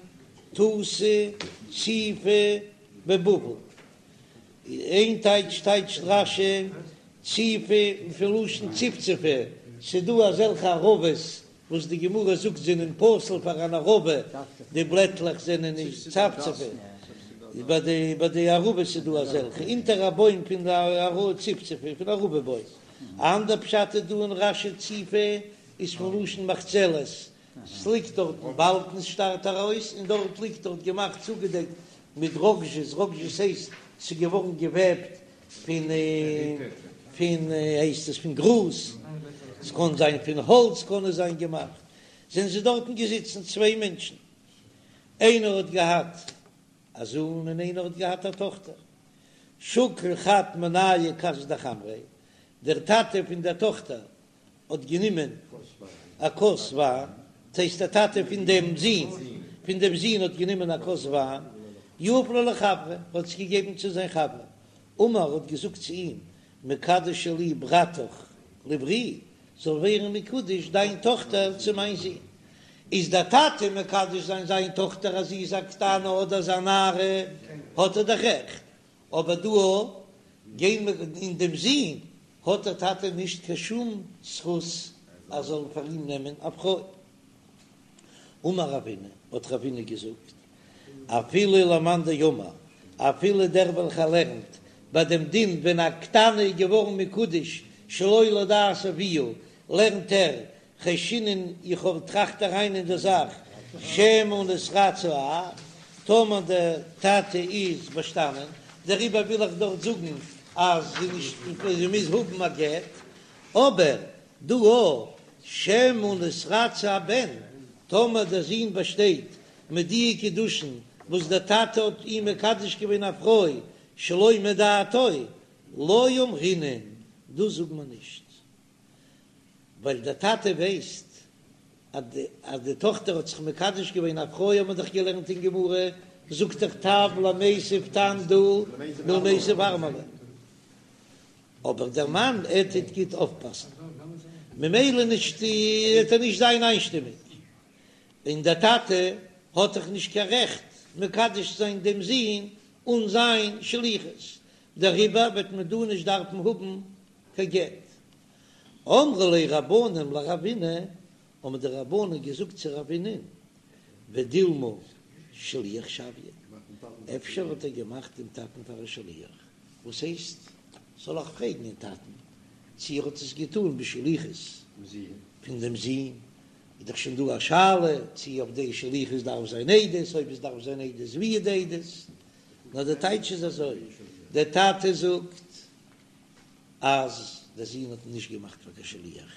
תותי ציפי בבבל, איין טייטש טייטשט רש"י ציפי פון לשון צפצפה, ס'דא אזעלכע ערבות וואס די גמרא זאגט זענען פסול פאר אן ערבה, די בלעטלעך זענען נישט צפצפה, ביי די ביי די ערבות איז דא אזעלכע, אונטער א בוים פון די ערבה צפצפה פון ערבה בוים, א אנדער פשט איז דא אין רש"י ציפי איז פון לשון מחצלת, ס'ליגט דארטן באלקנס שטארט ארויס און דארט ליגט דארט געמאכט צוגעדעקט מיט ראגאזשעס, ראגאזשעס הייסט ס'איז געווארן געוועבט פון פון הייסט עס פון גראז, ס'קען זיין פון האלץ קען עס זיין געמאכט, זענען זיי דארטן געזיצן צוויי מענטשן, איינער האט געהאט א זוהן און איינער האט געהאט א טאכטער, שקל חד מינייהו כסא דחמרא, דער טאטע פון דער טאכטער האט גענומען א כוס וויין, דאס הייסט דער טאטע פון דעם זון, פון דעם זון האט גענומען א כוס וויין, יהב ליה לחבריה, האט עס געגעבן צו זיין חבר, אמר האט געזאגט צו אים, מקדשא לי ברתך לברי, זאל ווערן מקודש דיין טאכטער צו מיין זון. איז דער טאטע מקדש זיין זיין טאכטער אז זי איז א קטנה אדער איז א נערה, האט ער דאך רעכט, אבער דא גיין אין דעם זון האט דער טאטע נישט קיין שום זכות אז זאל פאר אים נעמען א פרוי. אמר רבינא, האט רבינא געזאגט, אפילו למאן דאמר, אפילו דער וועלכער לערנט ביי דעם דין ווען א קטנה איז געווארן מקודש שלא לדעת אביה, לערנט ער חיישינן איך האב טראכט אריין אין די זאך שמא נתרצה האב, טאמער דער טאטע איז באשטאנען, דעריבער וויל איך דארט זאגן אז זי נישט זי מוז האבן א גט, אבער דא א שמא נתרצה הבן, טאמער דער זון באשטייט מיט די קידושין וואס דער טאטע האט אים מקדש געווען א פרוי שלא מדעתו, לא אמרינן, דאס זאגט מען נישט. ווייל דער טאטע ווייסט אז די טאכטער האט זיך מקדש געווען א פרוי האט מען דאך געלערנט אין גמרא, זאגט דאך טב למיתב תם דא מלמיתב ארמלא, אבער דער מאן ער טוט גוט אויפפאסן ממילא נישט וועט ער נישט זיין איינשטימיג, און דער טאטע האט דאך נישט קיין רעכט מקדש זיין דעם זון אן זיין שליחות, דעריבער וועט מען דא נישט דארפן האבן קיין גט. אמרו ליה רבנן לרבינא, האבן די רבנן געזאגט צו רבינא'ן, ודילמא שליח שויה, אפשר האט ער געמאכט דעם טאטן פאר א שליח, וואס הייסט, זאל איך פרעגן דעם טאטן צו ער האט עס געטאן בשליחות פון דעם זון, איז דאך שוין דא א שאלה צו אויף די שליחות דארף זיין עדות, אויב עס דארף זיין עדות ווי איז די עדות, נאר די טייטש איז אזוי, דער טאטע זאגט אז דער זון האט נישט געמאכט פאר קיין שליח,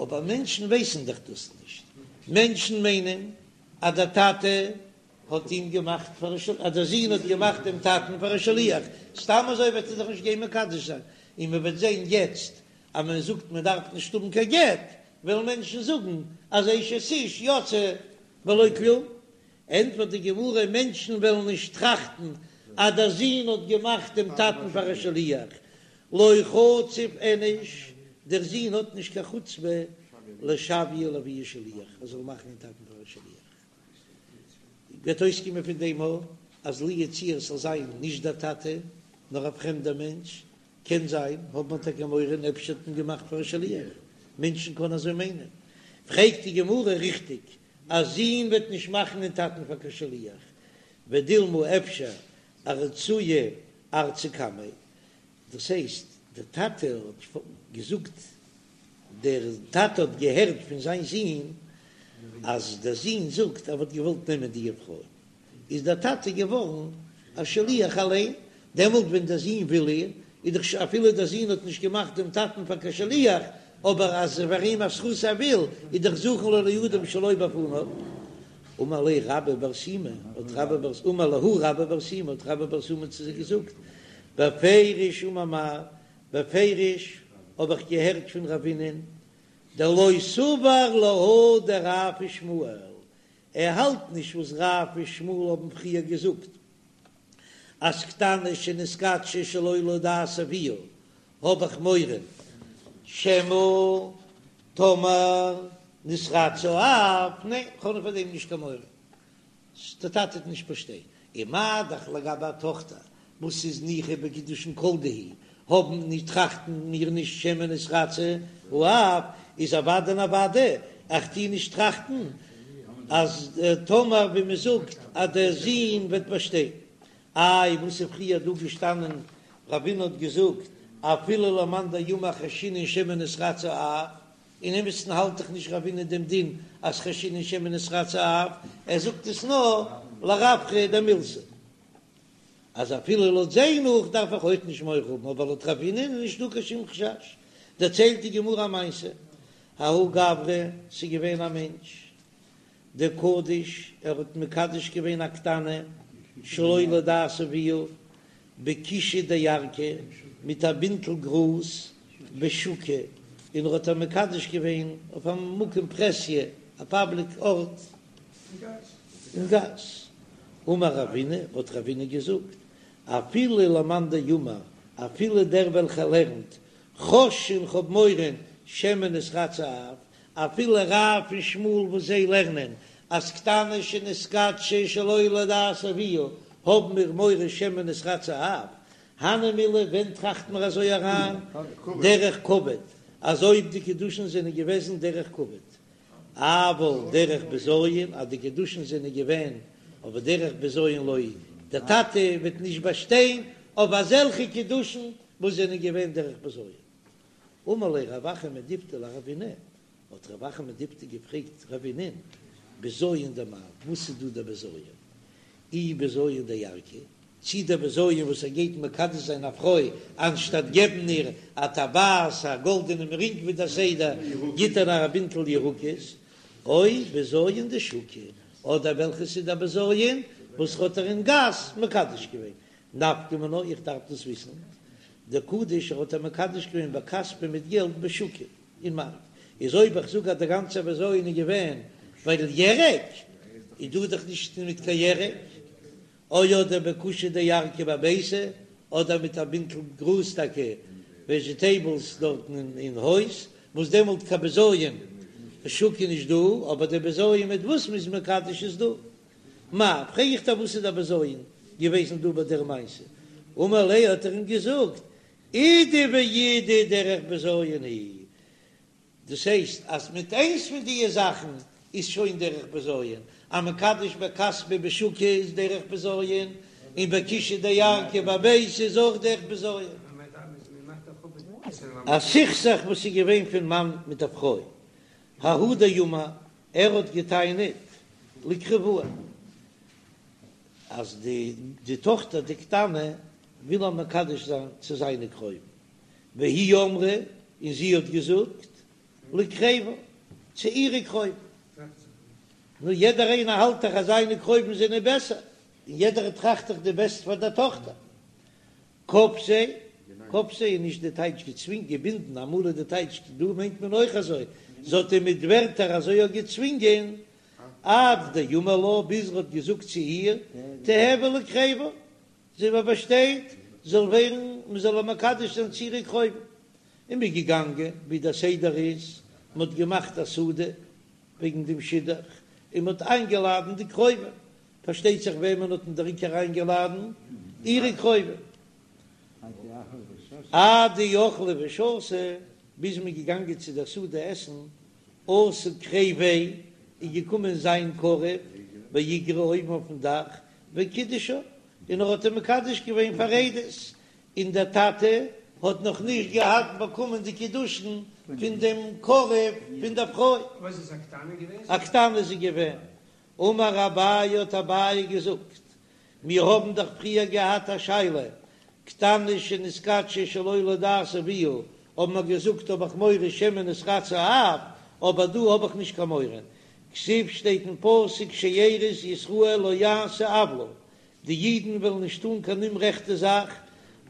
אבער מענטשן ווייסן דאך דאס נישט, מענטשן מיינען אז דער טאטע האט אים געמאכט פאר א שליח, אז דער זון האט געמאכט דעם טאטן פאר א שליח, סתם אזוי וועט ער זיך נישט גיין מקדש זיין, און מען וועט זען יעצט אז מען זאגט מען דארף נישט האבן קיין גט, וועלן מענטשן זאגן אז אשת איש יוצאה בלא כלום, ענטפערט די גמרא, מענטשן וועלן נישט טראכטן אז דער זון האט געמאכט דעם טאטן פאר א שליח, לא חציף איניש, דער זון האט נישט קיין חוצפה לשויי לאבוה שליח, ער זאל מאכן דעם טאטן פאר א שליח. וועט אויסקומען פון דעם אז לו יצוייר ס'זאל זיין נישט דער טאטע נאר א פרעמדער מענטש, קען זיין, האט מען טאקע מורא און אפשר האט מען געמאכט פאר א שליח, מענטשן קענען אזוי מיינען. פרעגט די גמרא, ריכטיג, א זון וועט נישט מאכן דעם טאטן פאר קיין שליח, ודילמא אפשר ארצויי ארצו קמיה, דאס הייסט דער טאטע האט געזאגט, דער טאטע האט געהערט פון זיין זון אז דער זון זאגט ער וואלט געוואלט נעמען די פרוי, איז דער טאטע געווארן א שליח אליין, דעמאלט ווען דער זון וויל איר, איז דאך אפילו דער זון האט נישט געמאכט דעם טאטן פאר קיין שליח, אבער אז ס'איז פאר אים א זכות ער וויל, איז דאך זכין לו לאדם שלא בפניו. אמר ליה רבה בר שימי, האט רבה בר, אמר להו רבה בר שימי, האט רבה בר שימי צו זיי געזאגט, בפירוש אמר מר, בפירוש האב איך געהערט פון רבינ'ען, דלא סבר להא דרב ושמואל, ער האלט נישט וואס רב ושמואל האבן פריער געזאגט אז קטנה שנתקדשה שלא לדעת אביה האב איך מורא שמא טאמער נתרצה האב, ניין כ'האב פאר דעם נישט קיין מורא. דער טאטע וועט נישט באשטיין. און מה דאך לגבי א טאכטער וואס איז ניחא בקידושין כל דהו, האבן נישט טראכטן מיר נישט שמא נתרצה האב, איז אוודאי און אוודאי איך טוה נישט טראכטן אז טאמער ווי מען זאגט אז דער זון וועט באשטיין. איי וואס איז פריער דא געשטאנען רבינא האט געזאגט אפילו למאן דאמר חיישינן שמא נתרצה האב, אין אמת'ן האלט דאך נישט רבינא דעם דין אז חיישינן שמא נתרצה האב, ער זאגט עס נאר לרווחא דמילתא אז אפילו לויט זיי נאך דארף איך אויך נישט מורא האבן, אבער לויט רבינא איז נישט דא קיין שום חשש. דערציילט די גמרא א מעשה, ההוא גברא, ס'איז געווען א מענטש דקדיש, ער האט מקדש געווען א קטנה שלא לדעת אביה, בכישא דירקא, מיט א בינטל גראז בשוקא, און ער האט איר מקדש געווען אויף א מקום פרהסיא, א פאבליק ארט אין גאס. אמר רבינא, האט רבינא געזאגט, אפילו למאן דאמר, אפילו דער וועלכער לערנט, חוששין כ'האב מורא שמא נתרצה האב, אפילו רב און שמואל וואס זיי לערנען אז קטנה שנתקדשה שלא לדעת אביה האבן מיר מורא שמא נתרצה האב, הני מילי ווען טראכט מען אזוי אריין דרך כבוד אז אויב די קידושין זענען געוועזן דרך כבוד. אבל דרך בזיון אז די קידושין זענען געווען אבער דרך בזיון לא, דער טאטע וועט נישט באשטיין אויף אזעלכע קידושין וואס זענען געווען דרך בזיון. אמר ליה רב אחא מדיפתי לרבינא, האט רב אחא מדיפתי געפרעגט רבינא'ן, בזיון דמאי, וואס איז דא דער בזיון? אי בזיון דירקא, צי דער בזיון וואס ער גייט מקדש זיין א פרוי, אנשטאט געבן איר א טבעת, א גאלדענעם רינג ווי דער סדר, גיט ער איר א בינטל ירקות, או בזיון דשוקא, אדער וועלכעס איז דער בזיון וואס האט ער אין גאס מקדש געווען, נפקא מינה, איך דארף דאס וויסן, דקדיש ער האט איר מקדש געווען בכספא מיט געלט בשוקא אין מארק, איז אויב איך זאג אז דער גאנצער בזיון איז געווען ווייל ירק, איז דא דאך נישט מיט קיין ירק, או אדער בכושא דירקא בביתא, אדער מיט א בינטל גראז טאקע וועזשיטעיבלס דארטן אין הויז, וואס דעמאלט קיין בזיון שוק איז נישט דא, אבער די בזיון מיט וואס מ'איז מקדש איז דא. מאי, פרעג איך דיר וואס איז דער בזיון געוועזן דא ביי דער מעשה? אמר ליה האט ער אים געזאגט, אידי ואידי דרך בזיון היא, דאס הייסט אז מיט איינס פון דיע זאכן איז שוין דרך בזיון, אז מקדש בכספא בשוקא איז דרך בזיון, און בכושא דירקא בביתא איז אויך דרך בזיון. א סכסוך וואס איז געווען פון מאן מיט א פרוי, ההוא דאמר, ער האט געטענה'ט לקריבאה אז די די טאכטער די קטנה וויל ער מקדש זיין צו זיינע קרובים, והיא אמרה, און זי האט געזאגט לקריבה צו אירע קרובים. נו יעדער איינער האלט דאך אז זיינע קרובים זענען בעסער, און יעדער טראכט דאך די בעסט פאר דער טאכטער. כפתיה, כפתיה איז נישט די טייטש געצווינגען, געבינדן, אמאל איז די טייטש, דא מיינט מען אויך אזוי, זי האט אים מיט ווערטער אזוי אויך געצווינגען, עד דאמר לה, ביז ער האט געזאגט צו איר, תיהוי לקריבה, זי באשטייט, זאל ווערן, מען זאל איר מקדש זיין צו אירע קרובים. און מ'איז געגאנגען, ווי דער סדר איז, מען האט געמאכט א סעודה וועגן דעם שידוך, און מען האט איינגעלאדן די קרובים, פארשטייט זיך וועמען האט מען דער עיקר איינגעלאדן? אירע קרובים. עד דאכלי ושתו, ביז מען איז געגאנגען צו דער סעודה עסן, אתא קריביה, איז געקומען זיין קרוב באיגרא אויבן אויפן דאך, וקידשה, און ער האט איר מקדש געווען פאר עדות, און דער טאטע האט נאך נישט געהאט באקומען די קידושין פון דעם קרוב פון דער פרוי. וואס איז א קטנה געווען? א קטנה איז זי געווען. אמר אביי האט אביי געזאגט, מיר האבן דאך פריער געהאט א שאלה, קטנה שנתקדשה שלא לדעת אביה, האבן מיר געזאגט האב איך מורא שמא נתרצה האב, אבער דא האב איך נישט קיין מורא, כתיב שטייט אין פסוק שארית ישראל לא יעשו עוולה, די אידן וועלן נישט טאן קיין אומרעכטע זאך,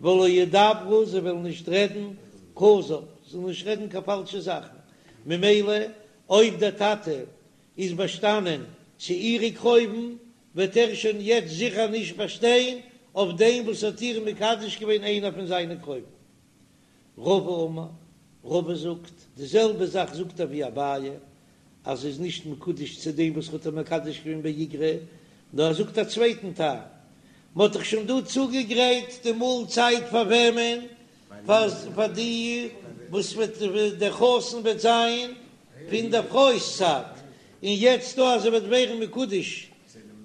ולא ידברו זיי וועלן נישט רעדן כזב, זיי וועלן נישט רעדן קיין פאלשע זאכן, ממילא אויב דער טאטע איז באשטאנען צו אירע קרובים, וועט ער שוין יעצט זיכער נישט באשטיין אויף דעם וואס האט איר מקדש געווען איינער פון זיינע קרובים. רבא אמר, רבא זאגט, די זעלבע זאך זאגט ער ווי אביי, אז זי איז נישט מקודש צו דעם וואס האט איר מקדש געווען באיגרא, נאר ער זאגט א צווייטן טעם, מען האט דאך שוין דא צוגעגרייט די מאלצייט פאר וועמען? פאר די וואס וועט דער חתן וועט זיין פון דער פרוי'ס צד, און יעצט דא אז זי וועט ווערן מקודש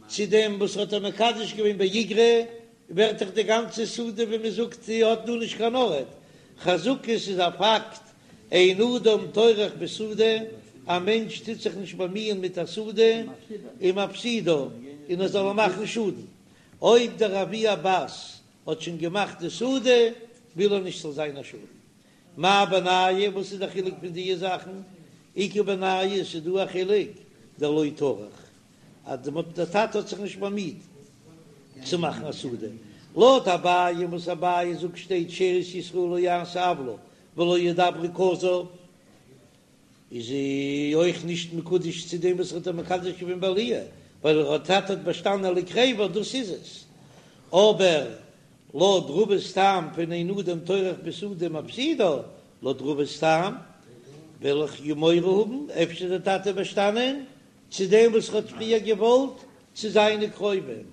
צו דעם וואס האט איר מקדש געווען באיגרא, ווערט דאך די גאנצע סעודה ווי מען זאגט זי האט דא נישט קיין ארט, חזקה ס'איז א פאקט, אין אדם טורח בסעודה, א מענטש טוט זיך נישט באמיען מיט א סעודה, ומפסידה, און ער זאל איר מאכן שאדן, אויב דער אבי הבת האט שוין געמאכט די סעודה, וויל ער נישט ס'זאל זיין א שאדן. מאי בינייהו, וואס איז די חילוק פון דיע זאכן? איכא בינייהו, ס'איז דא א חילוק, דלא טרח, אז דער טאטע האט זיך נישט באמיט צו מאכן א סעודה. לויט אביי, וואס אביי זאגט שטייט שארית ישראל לא יעשו עוולה ולא ידברו כזב, איז זי אויך נישט מקודש צו דעם וואס האט איר מקדש געווען בעליה, ווייל איר טאטע האט באשטאנען לקריבה, דאס איז עס. אבער לויט רבא'ס טעם פון אין אדם טורח בסעודה ומפסידה, לויט רבא'ס טעם וועל איך יא מורא האבן, אפשר איז דער טאטע באשטאנען צו דעם וואס האט פריער געוואלט צו זיינע קרובים.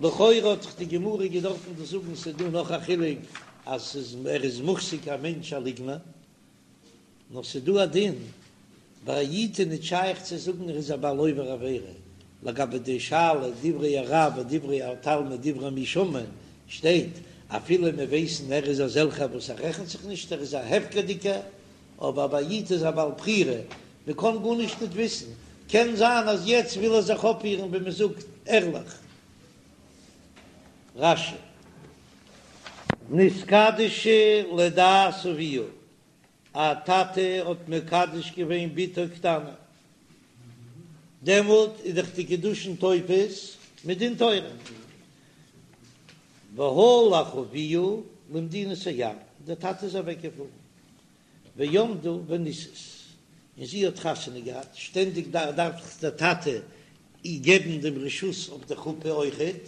לכאורה האט דאך די גמרא געדארפן דאס זאגן, ס'איז דא נאך א חילוק אז ס'איז ער איז מוחזק א מענטש א ליגנער. נאר ס'איז דא א דין. ביי א איד איז ניט שייך צו זאגן ער איז א בעל עובר עבירה, לגבי די שאלה דברי הרב ודברי התלמיד דברי מי שומעין שטייט אפילו מיר ווייסן ער איז אזעלכער וואס ער רעכנט זיך נישט ער איז א הפקר'דיגער, אבער ביי א איד איז א בעל בחירה, מען קען גארנישט ניט וויסן, קען זיין אז יעצט וויל ער זיך אויפפירן ווי מען זאגט ערליך. רש"י. נתקדשה לדעת אביה, א טאטע האט מקדש געווען בתו קטנה, דעמאלט איז דאך די קידושין תופס מדין תורה, והלך אביה למדינת הים, דער טאטע איז אוועק געפארן, ועמדה ונישאת, און זי האט חתונה געהאט, שטענדיג דארף דאך דער טאטע איר געבן דעם רשות אויף די חופה אויכעט,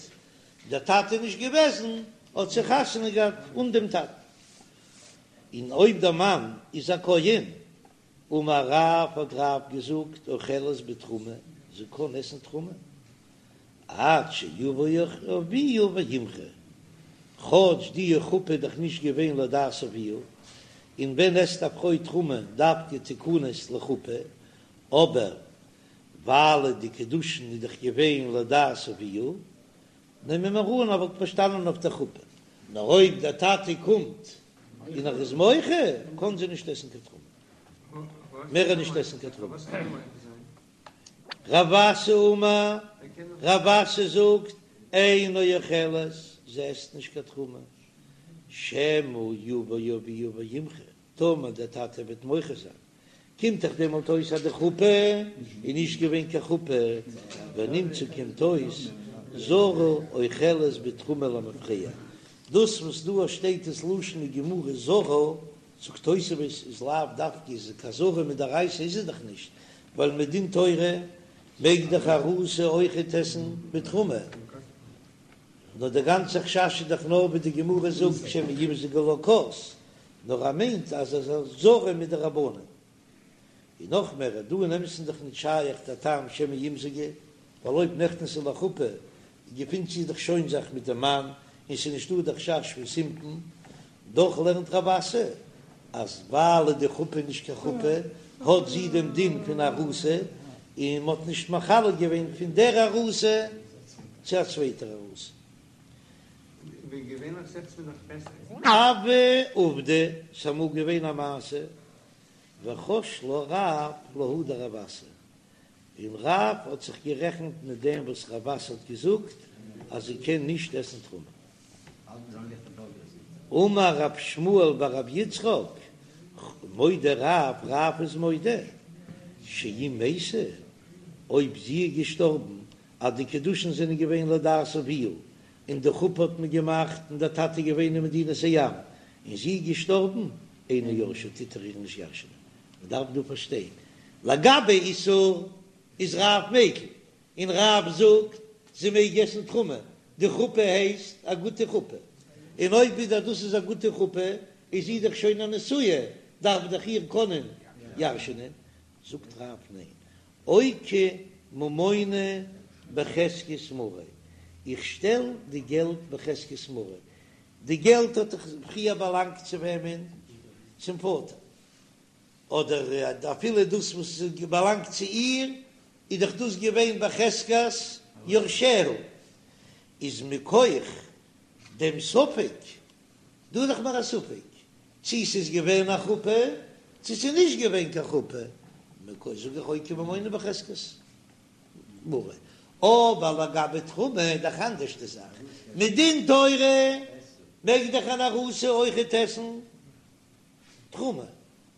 דער טאטע איז נישט געוועזן, האט זי חתונה געהאט אן דעם טאטן. און אויב דער מאן איז א כהן, אמר רב האט רב געזאגט אוכלת בתרומה, זי קען עסן תרומה, עד שיבוא אביה וימחה, כאטש די חופה איז דאך נישט געווען לדעת אביה, און ווען עסט א פרוי תרומה דווקא תכנס לחופה, אבער ווייל די קידושין איז דאך געווען לדעת אביה, נעמען מיר אן ער וואלט באשטאנען אויף דער חופה, נאר אויב דער טאטע קומט און ער איז מוחה, קען זי נישט עסן קיין תרומה, מער נישט עסן קיין תרומה. רב אסי אמר, רב אסי זאגט, אינה אוכלת, זי עסט נישט קיין תרומה, שמא יבא אביה וימחה, טאמער דער טאטע וועט מוחה זיין, קומט דאך דעמאלט אויס אז די חופה איז נישט געווען קיין חופה, ונמצא קומט אויס זרה אוכלת בתרומה למפרע, דאס וואס דא שטייט דאס לשון אין גמרא זרה, זאגט תוספות איז לאו דווקא איז קיין זרה מדאורייתא איז עס דאך נישט, ווייל מדין תורה מעג דאך ארוסה אויכעט עסן בתרומה, נאר די גאנצע חשש איז דאך נאר ווי די גמרא זאגט שמא ימזגו לה כוס, נאר ער מיינט אז עס איז זרה מדרבנן. און נאך מער, דא אין אמת'ן איז דאך נישט שייך דער טעם שמא ימזגו, ווייל אויב נכנסה לחופה געפינט זי דאך שוין זיך מיט דעם מאן און ס'איז נישטא דער חשש פון סימפון, דאך לערנט רב אסי אז ווייל די חופה איז נישט קיין חופה האט זי דעם דין פון ארוסה, און מ'האט נישט מחלק געווען פון דער ארוסה צו א צווייטער ארוסה. הוה עובדא, ס'איז אמאל געווען א מעשה, וחש לה רב להא דרב אסי, און רב האט זיך גערעכנט מיט דעם וואס רב אסי האט געזאגט אז זי קען נישט עסן תרומה. אמר רב שמואל בר רב יצחק, מודה רב, רב איז מודה, שאם מתה, אויב זי איז געשטארבן אז די קידושין זענען געווען לדעת אביה, און די חופה האט מען געמאכט און דער טאטע איז געווען אין מדינת הים, און זי איז געשטארבן, אינו יורשה טוט ער איר נישט ירש'נען. מען דארף דא פארשטיין, לגבי איסור איז רב מיקל, און רב זאגט זי מעג עסן תרומה, די חופה הייסט א גוטע חופה, און אויב ווידער דאס איז א גוטע חופה איז זי דאך שוין א נשואה, דארף דאך איר קענען ירש'נען, זאגט רב ניין, אוקי ממונא בחזקת מריה, איך שטעל די געלט בחזקת מריה, די געלט האט דאך פריער באלאנגט צו וועמען? צום פאטער, אדער אפילו דאס וואס באלאנגט צו איר, איז דאך דאס געווען בחזקת יורשיה, איז מכח דעם ספק, דא איז דאך נאר א ספק צי ס'איז געווען א חופה צי ס'איז נישט געווען קיין חופה, מכח זאג איך אוקי ממונא בחזקת מריה, אבער לגבי תרומה איז דאך אנדערש די זאך, מדין תורה מעג דאך אן ארוסה אויכעט עסן תרומה,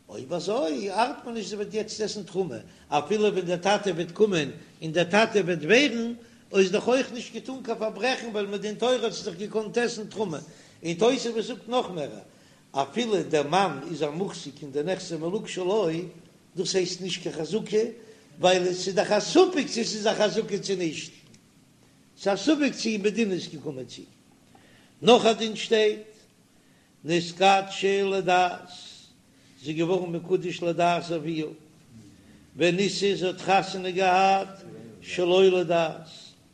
אויב אזוי ארט מיר נישט זי וועט יעצט עסן תרומה, אפילו ווען דער טאטע וועט קומען און דער טאטע וועט ווערן, איז דאך אויך נישט געטאן קיין פארברעכן ווייל מדין תורה האט זי דאך געקאנט עסן תרומה, און תוספות זאגט נאך מער, אפילו דער מאן איז א מוחזק אין די נכסי מלוג שלו, דאס הייסט נישט קיין חזקה, ווייל עס איז דאך א ספק צו עס איז א חזקה צו נישט, ס'איז א ספק צו מדין איז געקומען צו. נאך א דין שטייט נתקדשה לדעת, זי איז געווארן מקודש לדעת אביה, ונישאת זי האט חתונה געהאט שלא לדעת,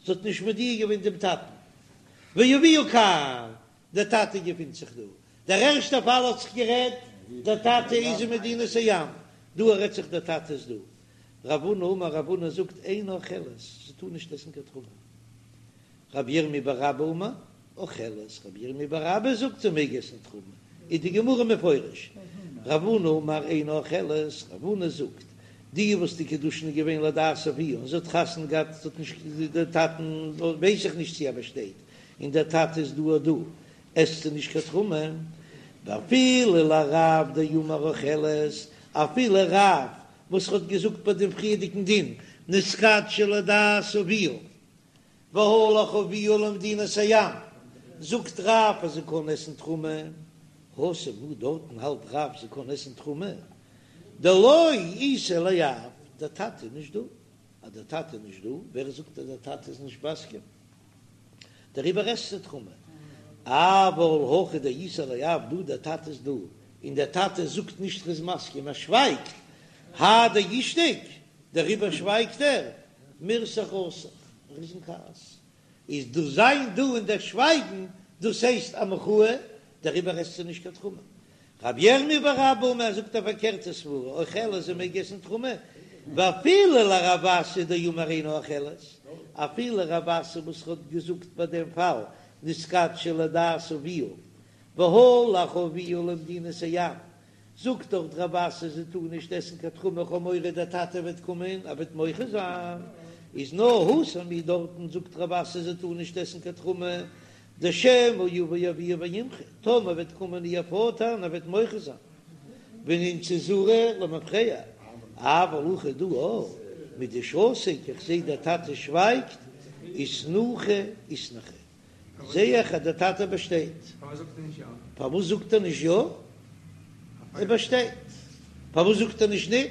זי האט נישט מודיע געווען דעם טאטן, ואביה כאן, דער טאטע געפינט זיך דא, דער ערשטער פאל האט זיך גערעדט, דער טאטע איז אין מדינת הים, דא רעדט זיך דער טאטע איז דא. רב הונא אמר רב הונא זאגט אינה אוכלת, זי טאר נישט עסן קיין תרומה. רב ירמי' בר אבא אמר אוכלת, רב ירמי' בר אבא זאגט זי מעג עסן תרומה, איז די גמרא מפרש, רב הונא אמר אינה אוכלת, רב הונא זאגט, די וואס די קידושין איז געווען לדעת אביה און זי האט חתונה געהאט, זי האט נישט די טאטן ווייס איך נישט צו ער באשטייט, און דער טאטע איז דא דא, עסט זי נישט קיין תרומה, ואפילו לרב דאמר אוכלת, אפילו רב וואס האט געזאגט ביי דעם פריערדיגן דין נתקדשה לדעת אביה והלך אביה למדינת הים, זאגט רב אז זי קען עסן תרומה, התם הוא דארטן האלט רב זי קען עסן תרומה, דלא איתיה לאב, דער טאטע איז נישט דא, אז דער טאטע איז נישט דא, ווער זאגט אז דער טאטע איז נישט מסכים? דעריבער עסט זי תרומה, אבל הכא דאיתיה לאב, דא דער טאטע איז דא, און דער טאטע זאגט נישט ער איז מסכים, ער שווייגט, האי דאישתיק, דעריבער שווייגט ער, מירתח רתח, ער איז אין כעס, איז דאס זיין דא און דער שווייגן, דאס הייסט א מחאה, דעריבער עסט זי נישט קיין תרומה. רב ירמי' בר אבא אמר זאגט א פארקערטע סברא, אוכלת זי מעג עסן תרומה, ואפילו לרב אסי דאמר אינה אוכלת, אפילו רב אסי וואס האט געזאגט ביי דעם פאל נתקדשה לדעת אביה והלך אביה למדינת הים, זאגט דארט רב אסי זי טאר נישט עסן קיין תרומה כ'האב מורא דער טאטע וועט קומען ער וועט מוחה זיין, איז נאר התם הוא דארטן זאגט רב אסי זי טאר נישט עסן קיין תרומה דשמא יבא אביה וימחה, טאמער וועט קומען איר פאטער און ער וועט מוחה זיין, ונמצא זרה למפרע, אבל הכא דא מדשתיק איך זעה דער טאטע שווייגט, איתנוחי איתנחי, זעה איך אז דער טאטע באשטייט. פארוואס זאגט ער נישט יא? ער באשטייט. פארוואס זאגט ער נישט ניט?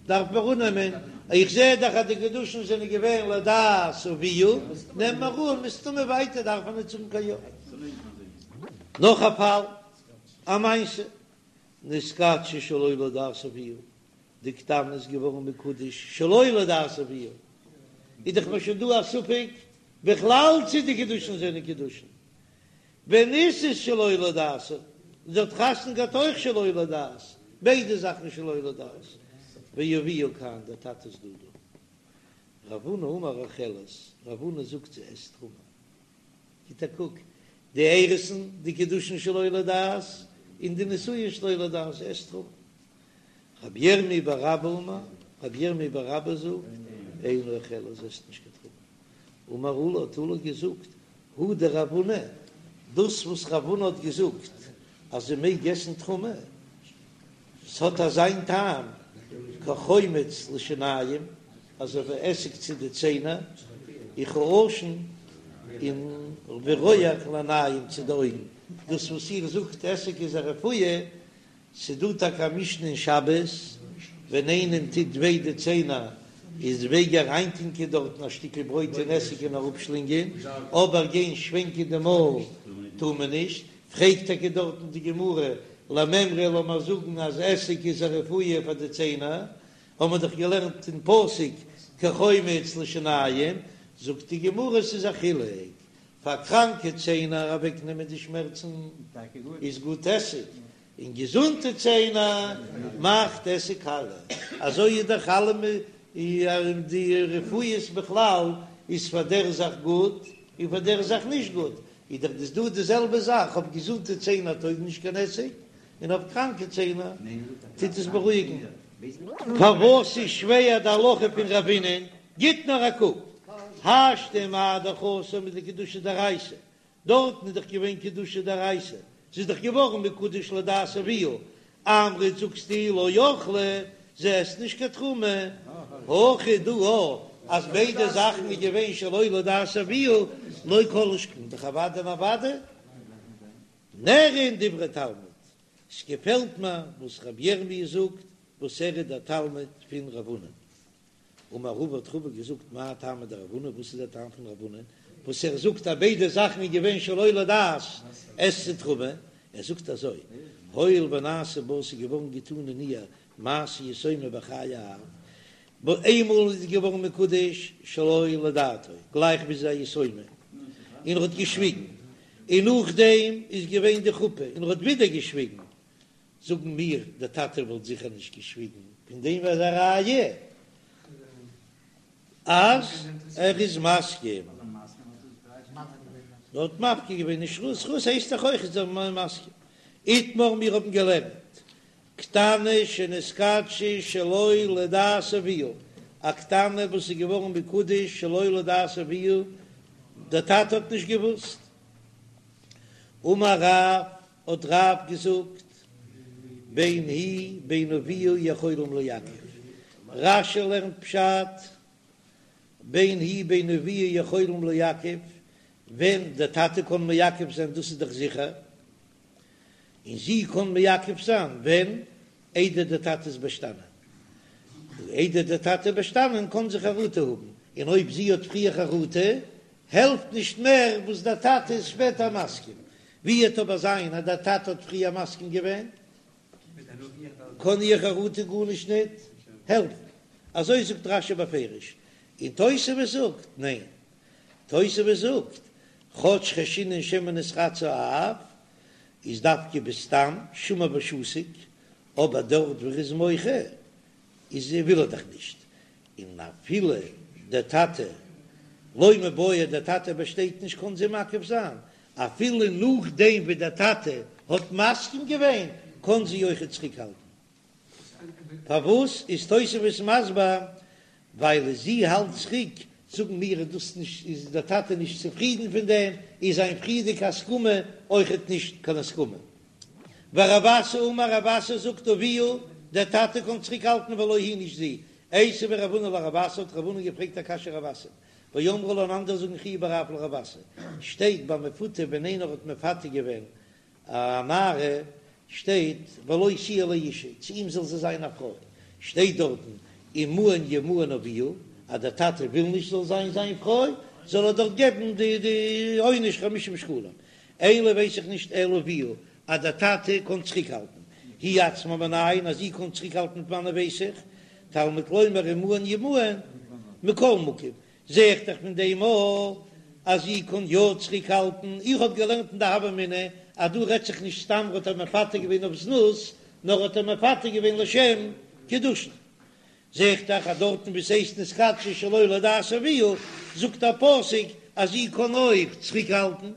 דארף מען אננעמען, איך זע דאך אז די קידושין זענען געווען לדעת אביה, נעם מיר אן מסתמא ווייטער דארף מען ניט זאגן קיין יא. נאך א פאל, א מעשה, נתקדשה שלא לדעת אביה, די קטנה איז געווארן מקודש שלא לדעת אביה, איז דאך מיר שוין דא א ספק בכלל צי די קידושין זענען קידושין, ונישאת שלא לדעת, זי האט חתונה געהאט אויך שלא לדעת, ביידע זאכן שלא לדעת, ואביה כאן, דער טאטע איז דא דא. רב הונא אמר אוכלת, רב הונא זאגט זי עסט תרומה. גיט א קוק, די אירוסין, די קידושין שלא לדעת, און די נישואין שלא לדעת, זי עסט תרומה. רבי ירמי' בר אבא אמר, רבי ירמי' בר אבא זאגט, אינה אוכלת, זי עסט נישט קיין תרומה. אמר עולא האט עולא געזאגט, הא דרב הונא, דאס וואס רב הונא האט געזאגט אז זי מעג עסן תרומה, ס'האט אזיין טעם כחומץ לשיניים, אזוי ווי עסיג צו די ציינער, וכעשן און ווי רויעך לעיניים צו די אויגן, דאס וואס איר זאגט עסיג איז א רפואה, ס'דא טאקע א משנה אין שבת, ווען איינעם טוט וויי די ציינער איז מעג ער אריינטונקען דארטן א שטיקל ברויט אין עסיג און אראפשלינגען, אבער גיין שווענקען די מויל טאר מען נישט, פרעגט טאקע דארטן די גמרא, למימרא לאמער זאגן אז עסיג איז א רפואה פאר די ציינער, האבן מיר דאך געלערנט אין פסוק כחומץ לשיניים, זאגט די גמרא ס'איז א חילוק, פאר קראנקע ציינער אוועקנעמען די שמערצן איז גוט עסיג, און געזונטע ציינער מאכט עסיג קאליע, אזוי איז דאך אלע די רפואות בכלל איז פאר דער זאך גוט און פאר דער זאך נישט גוט, איז דאך דאס דא די זעלבע זאך, אויף געזונטע ציינער טויג נישט קיין עסיג, און אויף קראנקע ציינער טוט עס בארואיגן. פארוואס איז שווער די הלכה פון רבינ'ען? גיט נאר א קוק, השתא מה דאך התם דקידושי דאורייתא, דארטן איז דאך געווען קידושי דאורייתא, זי איז דאך געווארן מקודש לדעת אביה, אמרת זאגסטו לא אכלה, זי עסט נישט קיין תרומה, הכא דא אז ביידע זאכן איז געווען שלא לדעת אביה, לא כל שכן, דאך אוודאי און אוודאי נראין דברי תלמיד, ס'געפעלט מיר וואס רבי ירמי' זאגט, וואס ער איז דער תלמיד פון רב הונא. אמר רבא האט רבא געזאגט מאי טעמא דרב הונא, וואס איז דער טעם פון רב הונא וואס ער זאגט אז ביידע זאכן איז געווען שלא לדעת עסט זי תרומה, ער זאגט אזוי, הואיל ונעשה בה ס'איז געווארן געטאן אין איר מעשה יתומה בחיי האב, איינמאל איז געווארן מקודש שלא לדעתו גלייך ווי זי איז א יתומה און ער האט געשוויגן, און נאכדעם איז געווען די חופה און ער האט ווידער געשוויגן, זאגן מיר, דער טאטע וואלט זיכער נישט געשוויגן, פון דעם איז א ראיה. אז ער איז מסכים. ער האט מפקיר געווען נישט זכות הייסט דאך אויך איז ער מסכים. איתמר מיר האבן געלערנט קטנה שנתקדשה שלא לדעת אביה, א קטנה וואס איז געווארן מקודש שלא לדעת אביה, דער טאטע האט נישט געוואוסט. אמר רב, האט רב געזאגט, בין היא בין אביה יכולים לעכב, רש"י לערנט פשט, בין היא בין אביה יכולים לעכב, ווען דער טאטע קען מעכב זיין דאס איז דאך זיכער, און זי קען מעכב זיין ווען איידער דער טאטע איז באשטאנען, איידער דער טאטע איז באשטאנען קען זי חרטה האבן, און אויב זי האט פריער חרטה העלפט נישט מער וואס דער טאטע איז שפעטער מסכים, ווי וועט אבער זיין אז דער טאטע האט פריער מסכים געווען קען איר חרטה גארנישט ניט העלפן, אזוי זאגט רש"י בפירוש, און תוספות זאגט ניין, תוספות זאגט, כאטש חיישינן שמא נתרצה האב, איז דווקא בסתם שמע ושתיק, אבער דארט וואו ער איז מוחה איז וויל ער דאך נישט, און אפילו דער טאטע לא מיבעיא דער טאטע באשטייט נישט קען זי מעכב זיין, אפילו נאכדעם ווי דער טאטע האט מסכים געווען קען זי אויכעט צוריקהאלטן. פארוואס איז תוספות מסביר ווייל זי האלט צוריק, זאגן מיר איז דאס נישט איז דער טאטע נישט צופרידן פון דעם, איז זיין פריערדיגע הסכמה אויכעט נישט קיין הסכמה. ורב אסי אמר רב אסי זאגט אביה, דער טאטע קען צוריק האלטן ולא היא נישט זי. איתיביה רב הונא לרב אסי האט רב הונא געפרעגט א קשיא רב אסי, ואמרי לה און אנדערע זאגן חייא בר רב לרב אסי, שטייט ביי מפותה ווען איינער האט מפתה געווען א נערה שטייט ולו תהיה לאשה, צו אים זאל זי זיין א פרוי, שטייט דארטן אם מאן ימאן אביה, אז דער טאטע וויל נישט זאל זיין זיין פרוי, זאל ער דארט געבן די די עונש חמישים שקלים, אין לי ווייס איך נישט אלא אביה, אז דער טאטע קען צוריקהאלטן, היא עצמה מנין, אז זי קען צוריקהאלטן פון וואנען ווייס איך, תלמוד לומר אם מאן ימאן, מכל מקום, זע איך דאך פון דעם אויך אז זי קען יא צוריק האלטן, איך האב געלערנט אין די הוה אמינא אז דא רעדט זיך נישט סתם האט ער מפתה געווען אויף זנות, נאר האט ער מפתה געווען לשם קידושין. זע איך דאך אז דארטן וואו ס'הייסט נתקדשה שלא לדעת אביה, זאגט דער פסוק אז זי קען אויך צוריק האלטן.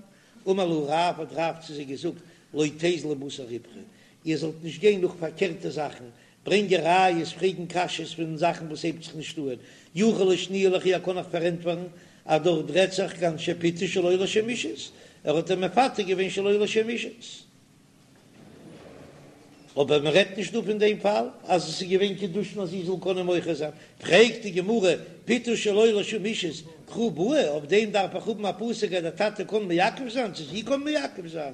אמר להו רב האט רב צו זיי געזאגט לא תיזלו בתר ריפכא, איר זאלט נישט גיין נאך פארקערטע זאכן, ברענגען ראיות, פרעגן קשיות פון זאכן וואס הייבט זיך נישט אהן, יכול לשנויי לכו איך קען אייך פארענטפערן אז דארט רעדט זיך כגון שפיתה שלא לשם אישות, ער האט איר מפתה געווען שלא לשם אישות. אבער מען רעדט נישט דא פון דעם פאל אז עס איז געווען קידושין אז זי זאל קענען מוחה זיין, פרעגט די גמרא, פיתוי שלא לשם אישות קרא בעי, אויף דעם דארף איך האבן א פסוק אז דער טאטע קען מעכב זיין, צו זי קען מעכב זיין,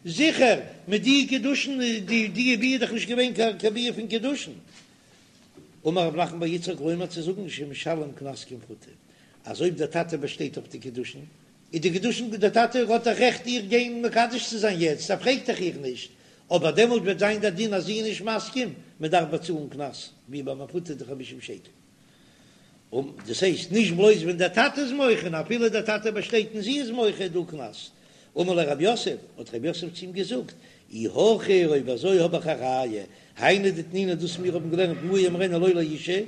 זיכער, מיט די קידושין, די די ביאה איז דאך נישט געווען קיין ביאה פון קידושין. אמר רב נחמן בר יצחק לומר צו זאגן שמשלם קנס כמפותה, אז אויב דער טאטע באשטייט אויף די קידושין, איז די קידושין דער טאטע האט דאך רעכט איר גיין מקדש צו זיין יעצט, ער פרעגט דאך איר נישט, אבער דעמאלט וועט זיין דער דין אז זי איז נישט מסכים, מען דארף באצאלן קנס, ווי ביי מפותה די חמישים שקל. און דאס הייסט נישט בלויז ווען דער טאטע איז מוחה, נאר אפילו דער טאטע באשטייט און זי איז מוחה איז דא קנס. אמר ליה רב יוסף, האט רב יוסף צו אים געזאגט, אי הכי אויב אזוי האב איך א ראיה, היינו דתנינא דאס מיר האבן געלערנט מהר ימהרנה לו לאשה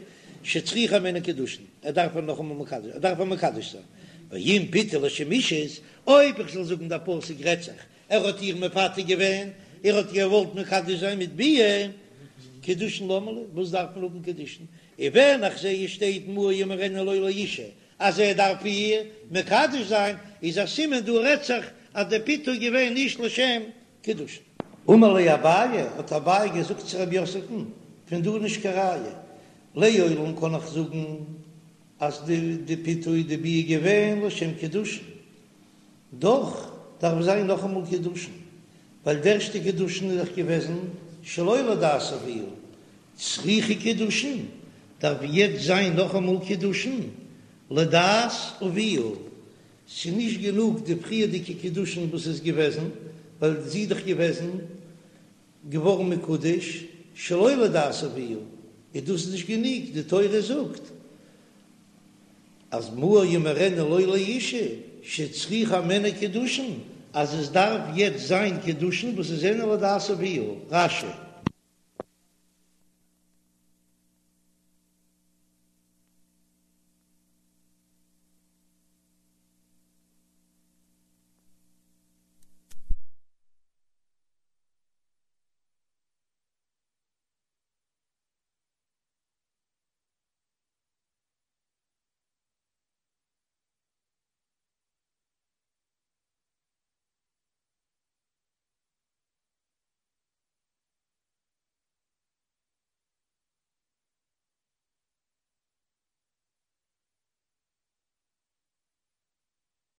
שצריכה הימנו קידושין, ער דארף איר נאכאמאל מקדש, ער דארף איר מקדש זיין, ואם פיתה לשם אישות, אויב איך זאל זאגן דער פסוק רעדט זיך ער האט איר מפתה געווען, ער האט געוואלט מקדש זיין מיט ביאה, קידושין למה לי, וואס דארף מען האבן קידושין, און ווען איך זע עס שטייט מהר ימהרנה לו לאשה אז ער דארף איר מקדש זיין, איז א סימן דא רעדט זיך אז דער פיתוי איז געווען נישט לשם קידושין. אמר ליה אביי, האט אביי געזאגט צו רב יוסף'ן, פון דא נישט קיין ראיה, לעולם קען איך זאגן אז די פיתוי די ביאה געווען לשם קידושין, דאך דארף זיין נאכאמאל קידושין, ווייל די ערשטע קידושין איז דאך געוועזן שלא לדעת אביה, צריכא קידושין, דארף יעצט זיין נאכאמאל קידושין לדעת אביה, ס'איז נישט גענוג די פריערדיגע קידושין וואס איז געוועזן, ווייל זי איז דאך געוועזן געווארן מקודש שלא לדעת אביה, איז דאס נישט גענוג, די תורה זאגט אז מהר ימהרנה לו לאשה שצריכה הימנו קידושין, אז עס דארף יעצט זיין קידושין וואס איז זענען לדעת אביה, רש"י.